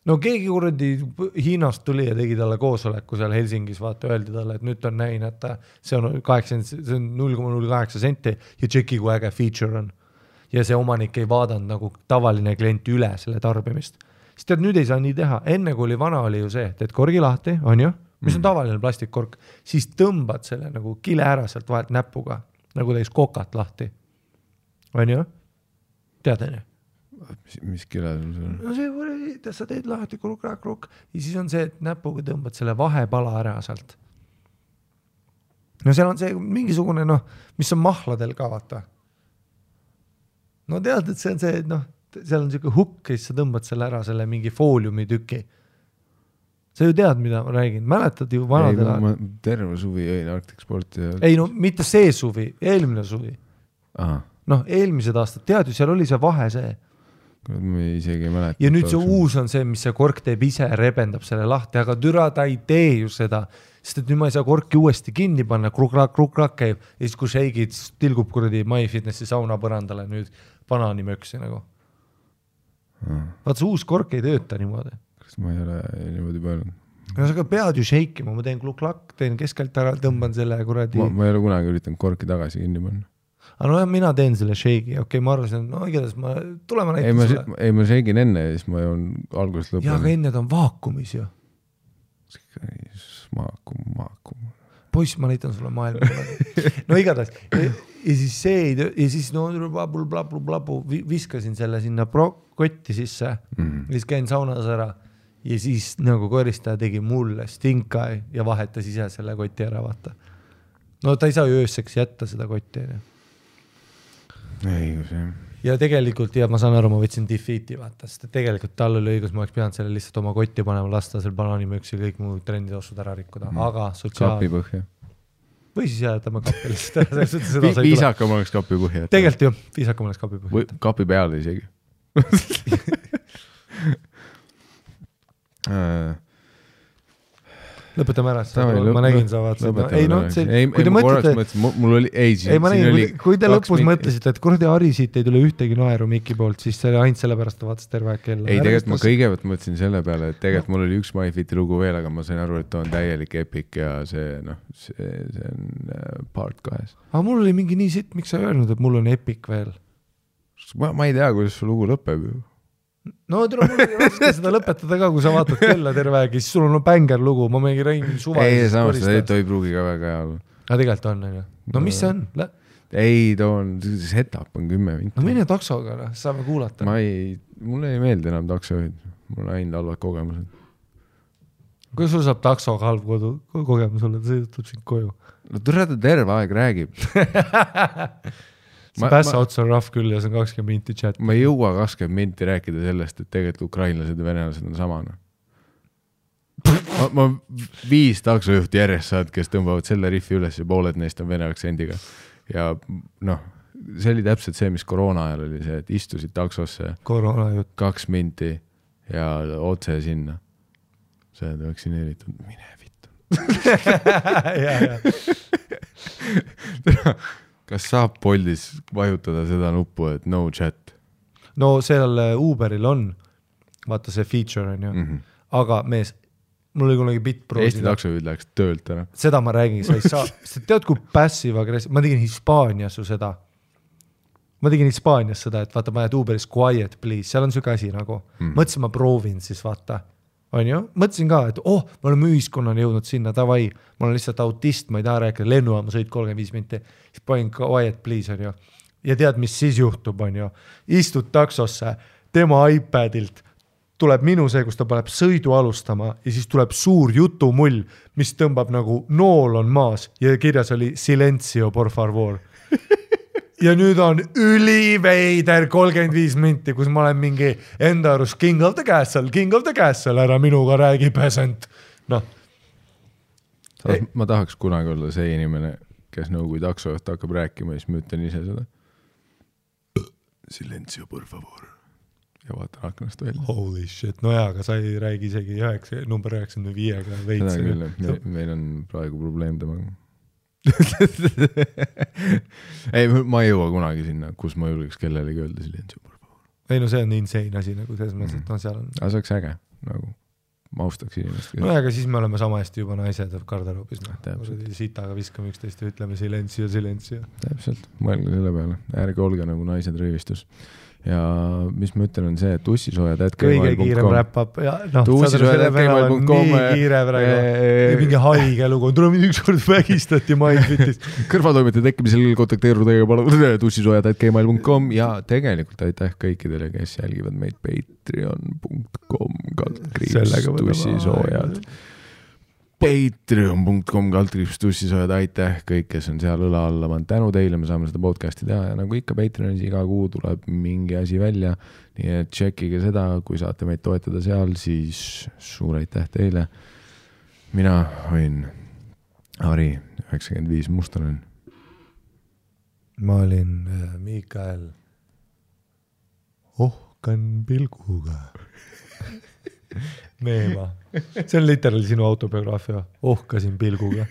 no keegi kuradi Hiinast tuli ja tegi talle koosoleku seal Helsingis, vaata, öeldi talle, et nüüd on näin, et see on 0,08 senti ja tšeki, kui äge feature on. Ja see omanik ei vaadanud nagu tavaline klient üle selle tarbimist. Siis tead, nüüd ei saa nii teha. Enne kui vana oli ju see, teed korgi lahti, on ju, mis on tavaline plastikkork, siis tõmbad selle nagu kile ära sealt vahelt näpuga, nagu teis kokat lahti. On ju? Tead, on ju? Mis kile sul on? No see, sa teed lahti kruk ja siis on see, et näpuga tõmbad selle vahepala ära sealt. No seal on see mingisugune, mis on mahladel ka, vaata. No tead, et see on see, et seal on selline hukk ja siis sa tõmbad selle ära, selle mingi fooliumi tüki. Sa ju tead, mida ma räägin. Mäletad ju vanadel ajal? Ma terve suvi jõin Arctic Sporti. Ja... Ei, no mitte see suvi, eelmine suvi. Aha. Eelmised aastad, tead ju, seal oli see vahe see. Ma isegi ei mäleta. Ja nüüd see uus on see, mis see kork teeb ise, rebendab selle lahti, aga türa ta ei tee ju seda, sest et nüüd ma ei saa korki uuesti kinni panna, kruk-rak käib ja siis kui shake'id tilgub kuradi MyFitnessi sauna põrandale nüüd banaanimöksi nagu. Vaat see uus kork ei tööta niimoodi. Kas ma ei ole niimoodi mõelnud? No sa pead ju shake'ima, ma teen kluk-lak, teen keskelt ära, tõmban selle kuradi... Ma ei ole kunagi üritanud korki tagasi kinni panna. Aga no mina teen selle shake'i, okei, ma arvasin, igatahes tulema näitan sulle. Ei, ma shake'in enne ja siis ma joon algusest lõpuni. Ja, aga enne ta on vaakumis ju. Maakum. Poiss, ma näitan sulle maailma. No igatahes. Ja siis see, ja siis blabu, viskasin selle sinna kotti sisse, siis käin saunas ära ja siis nagu koristaja tegi mulle stinkai ja vahetas ise selle koti ära, vaata. No ta ei saa ju ööseks jätta seda kotti. Ei, see. Ja tegelikult, ja ma saan aru, ma võtsin defeat'i, vaata, sest tegelikult tal oli õigus, ma oleks pidanud selle lihtsalt oma kotti panema, lasta seal banaanimöks ja kõik muu trenditossud ära rikkuda, aga kapi põhja. Või siis jätame kapi lihtsalt ära. Viisakam oleks kapi põhja. Tegelikult ju, viisakam oleks kapi põhja. Kapi peale isegi. Lõpetame ära, ma nägin sa vaatasid. Kui te mõtlete, kui te lõpus mõtlesite, et kuradi Ari siit ei tule ühtegi naeru Miki poolt, siis see oli ainult sellepärast, ta vaatas terve kella. Ei, tegelikult ma kõigepealt mõtlesin selle peale, et tegelikult mul oli üks MyFiti lugu veel, aga ma sain aru, et ta on täielik epic ja see on part 2. Aga mul oli mingi nii sitt, miks sa öelnud, et mul on epic veel? Ma ei tea, kuidas su lugu lõpeb ju. No mul oli raske seda lõpetada ka, kui sa vaatad kella terve aeg, siis sul on bänger lugu, ma mingi räägin suvaliselt. Ei, samas seda ei pruugi ka väga hea. Aga tegelikult on, on ju. No mis see on? Ei, too on, setup on 10 minti. No mine taksoga, saame kuulata. Mulle ei meeldi enam taksoid. Mul on ainult halvad kogemused. Kuidas sul saab taksoga halb kogemus olla, ta sõidutab sind koju? No ta terve aeg räägib. See päässa otsa on rahv küll ja see on 20 minti chat. Ma ei jõua 20 minti rääkida sellest, et tegelikult ukrainlased ja venelased on samana. Ma 5 taksojuhti järjest saad, kes tõmbavad selle riffi üles ja pooled neist on vene aktsendiga. Ja see oli täpselt see, mis koroona ajal oli see, et istusid taksosse 2 minti ja otse sinna. Sa oled vaktsineeritud, mine vittu. Kas saab Boltis vajutada seda nuppu, et no chat? No seal Uberil on, vaata see feature on ju, aga mees, mul oli kunagi bitproosida. Eesti taksojuhid läheks töölt ära. Seda ma räägin, sa ei saa, sa tead kui passive aggressive, ma tegin Hispaanias ju seda. Ma tegin Hispaanias seda, et vaata, ma jääd Uberis quiet please, seal on süke asi nagu. Mõtlesin, ma proovin siis vaata. On ju? Mõtlesin ka, et me oleme ühiskonnani jõudnud sinna, tavai, ma olen lihtsalt autist, ma ei taha rääkida, lennujaama sõid 35 minti, siis panin quiet please, on ju. Ja tead, mis siis juhtub, on ju. Istud taksosse, tema iPadilt tuleb minu see, kus ta paneb sõidu alustama ja siis tuleb suur jutumull, mis tõmbab nagu nool on maas ja kirjas oli silencio por favor. Ja nüüd on üliveider 35 minti, kus ma olen mingi enda arust king of the castle, ära minuga räägi peasant. Noh. Ma tahaks kunagi olla see inimene, kes nagu kui taksojuht hakkab rääkima ja siis ma ütlen ise seda. Silencio por favor. Ja vaatan aknast välja. Holy shit, no jaa, aga sa ei räägi isegi number 95-ga veits. Seda küll, meil on praegu probleem temaga. Ei, ma ei jõua kunagi sinna, kus ma julgeks kellelegi öelda silencio por favor. Ei no see on insane asi, nagu selles mõttes, et no seal on... Aga see oleks äge, nagu ma austaks inimest. No aga siis me oleme sama hästi juba naised garderoobis. Sitaga viskame üksteist ja ütleme silencio. Täpselt, mõelge selle peale. Ärge olge nagu naised röövistus. Ja mis ma ütlen on see, et tussisoojad@gmail.com kõige kiirem räppab ja noh, tussisoojad@gmail.com nii kiire praegu mingi haige lugu, tuleb ükskord vägistati MyFitis kõrvatoimete tekkimisel kontakteeruda tussisoojad@gmail.com ja tegelikult aitäh kõikidele, kes jälgivad meid patreon.com tussisoojad patreon.com tussisoojad, aitäh kõik, kes on seal õla alla, ma tänu teile, me saame seda podcasti teha ja nagu ikka Patreonis iga kuu tuleb mingi asi välja, nii et tšekkige seda, kui saate meid toetada seal, siis suur aitäh teile. Mina olin Ari 95 Mustonen. Ma olin Mikael Ohkan pilguga. Meema. See on literaali sinu autobiograafia. Ohkasin pilguga.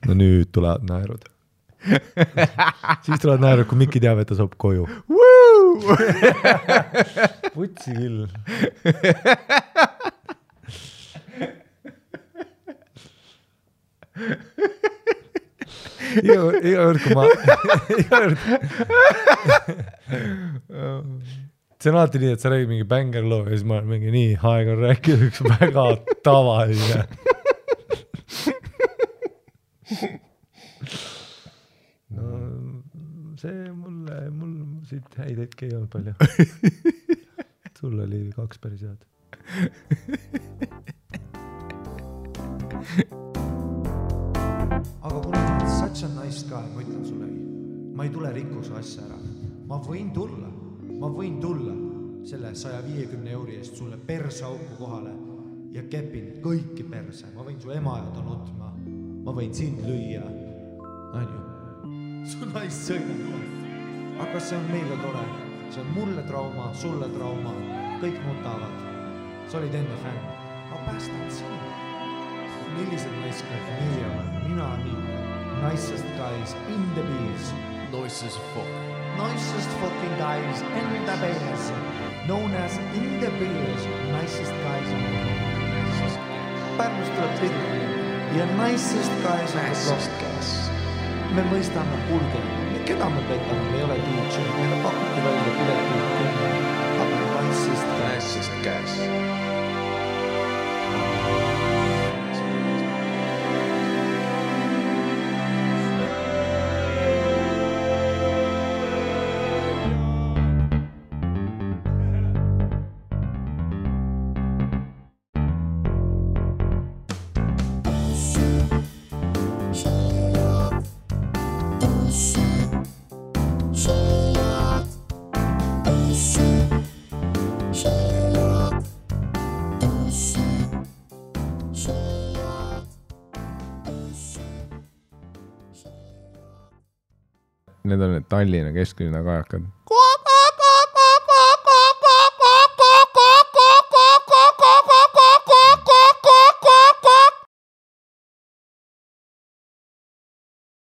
No nüüd tulevad naerud. Siis tulevad naerud, kui Mikki teab, et ta saab koju. Putsi küll. Iga kord, kui ma... See on alati nii, et sa räägid mingi bängerloo ja siis ma olen mingi nii aeg on rääkida üks väga tavaline. No see mul siit häid hetki ei olnud palju. Sul oli 2 päris head. Aga kuna such a nice guy, ma ütlen sulle, ma ei tule rikkuse asja ära. Ma võin tulla selle 150 € eest sulle persauku kohale ja kepin kõiki perse. Ma võin su ema ja ta nutma. Ma võin sind lüüa. Anju, su naist sõidab. Aga see on meile tore. See on mulle trauma, sulle trauma. Kõik nutavad. Sa olid enne fänn. Ma päästan sinu. Millised naiskad meie olen? Mina nii. Nicest guys in the beers. Nicest fucking guys in the beers. Known as in the beers. Nicest guys in the beers. Pärnust tuleb tihti. Ja nicest guys in the beers. Me mõistame hulge. Keda me petame? Me ei ole DJ. Meile pakuti välja piletit. Aga nicest guys. Need on need Tallinna kesklinna kajakad.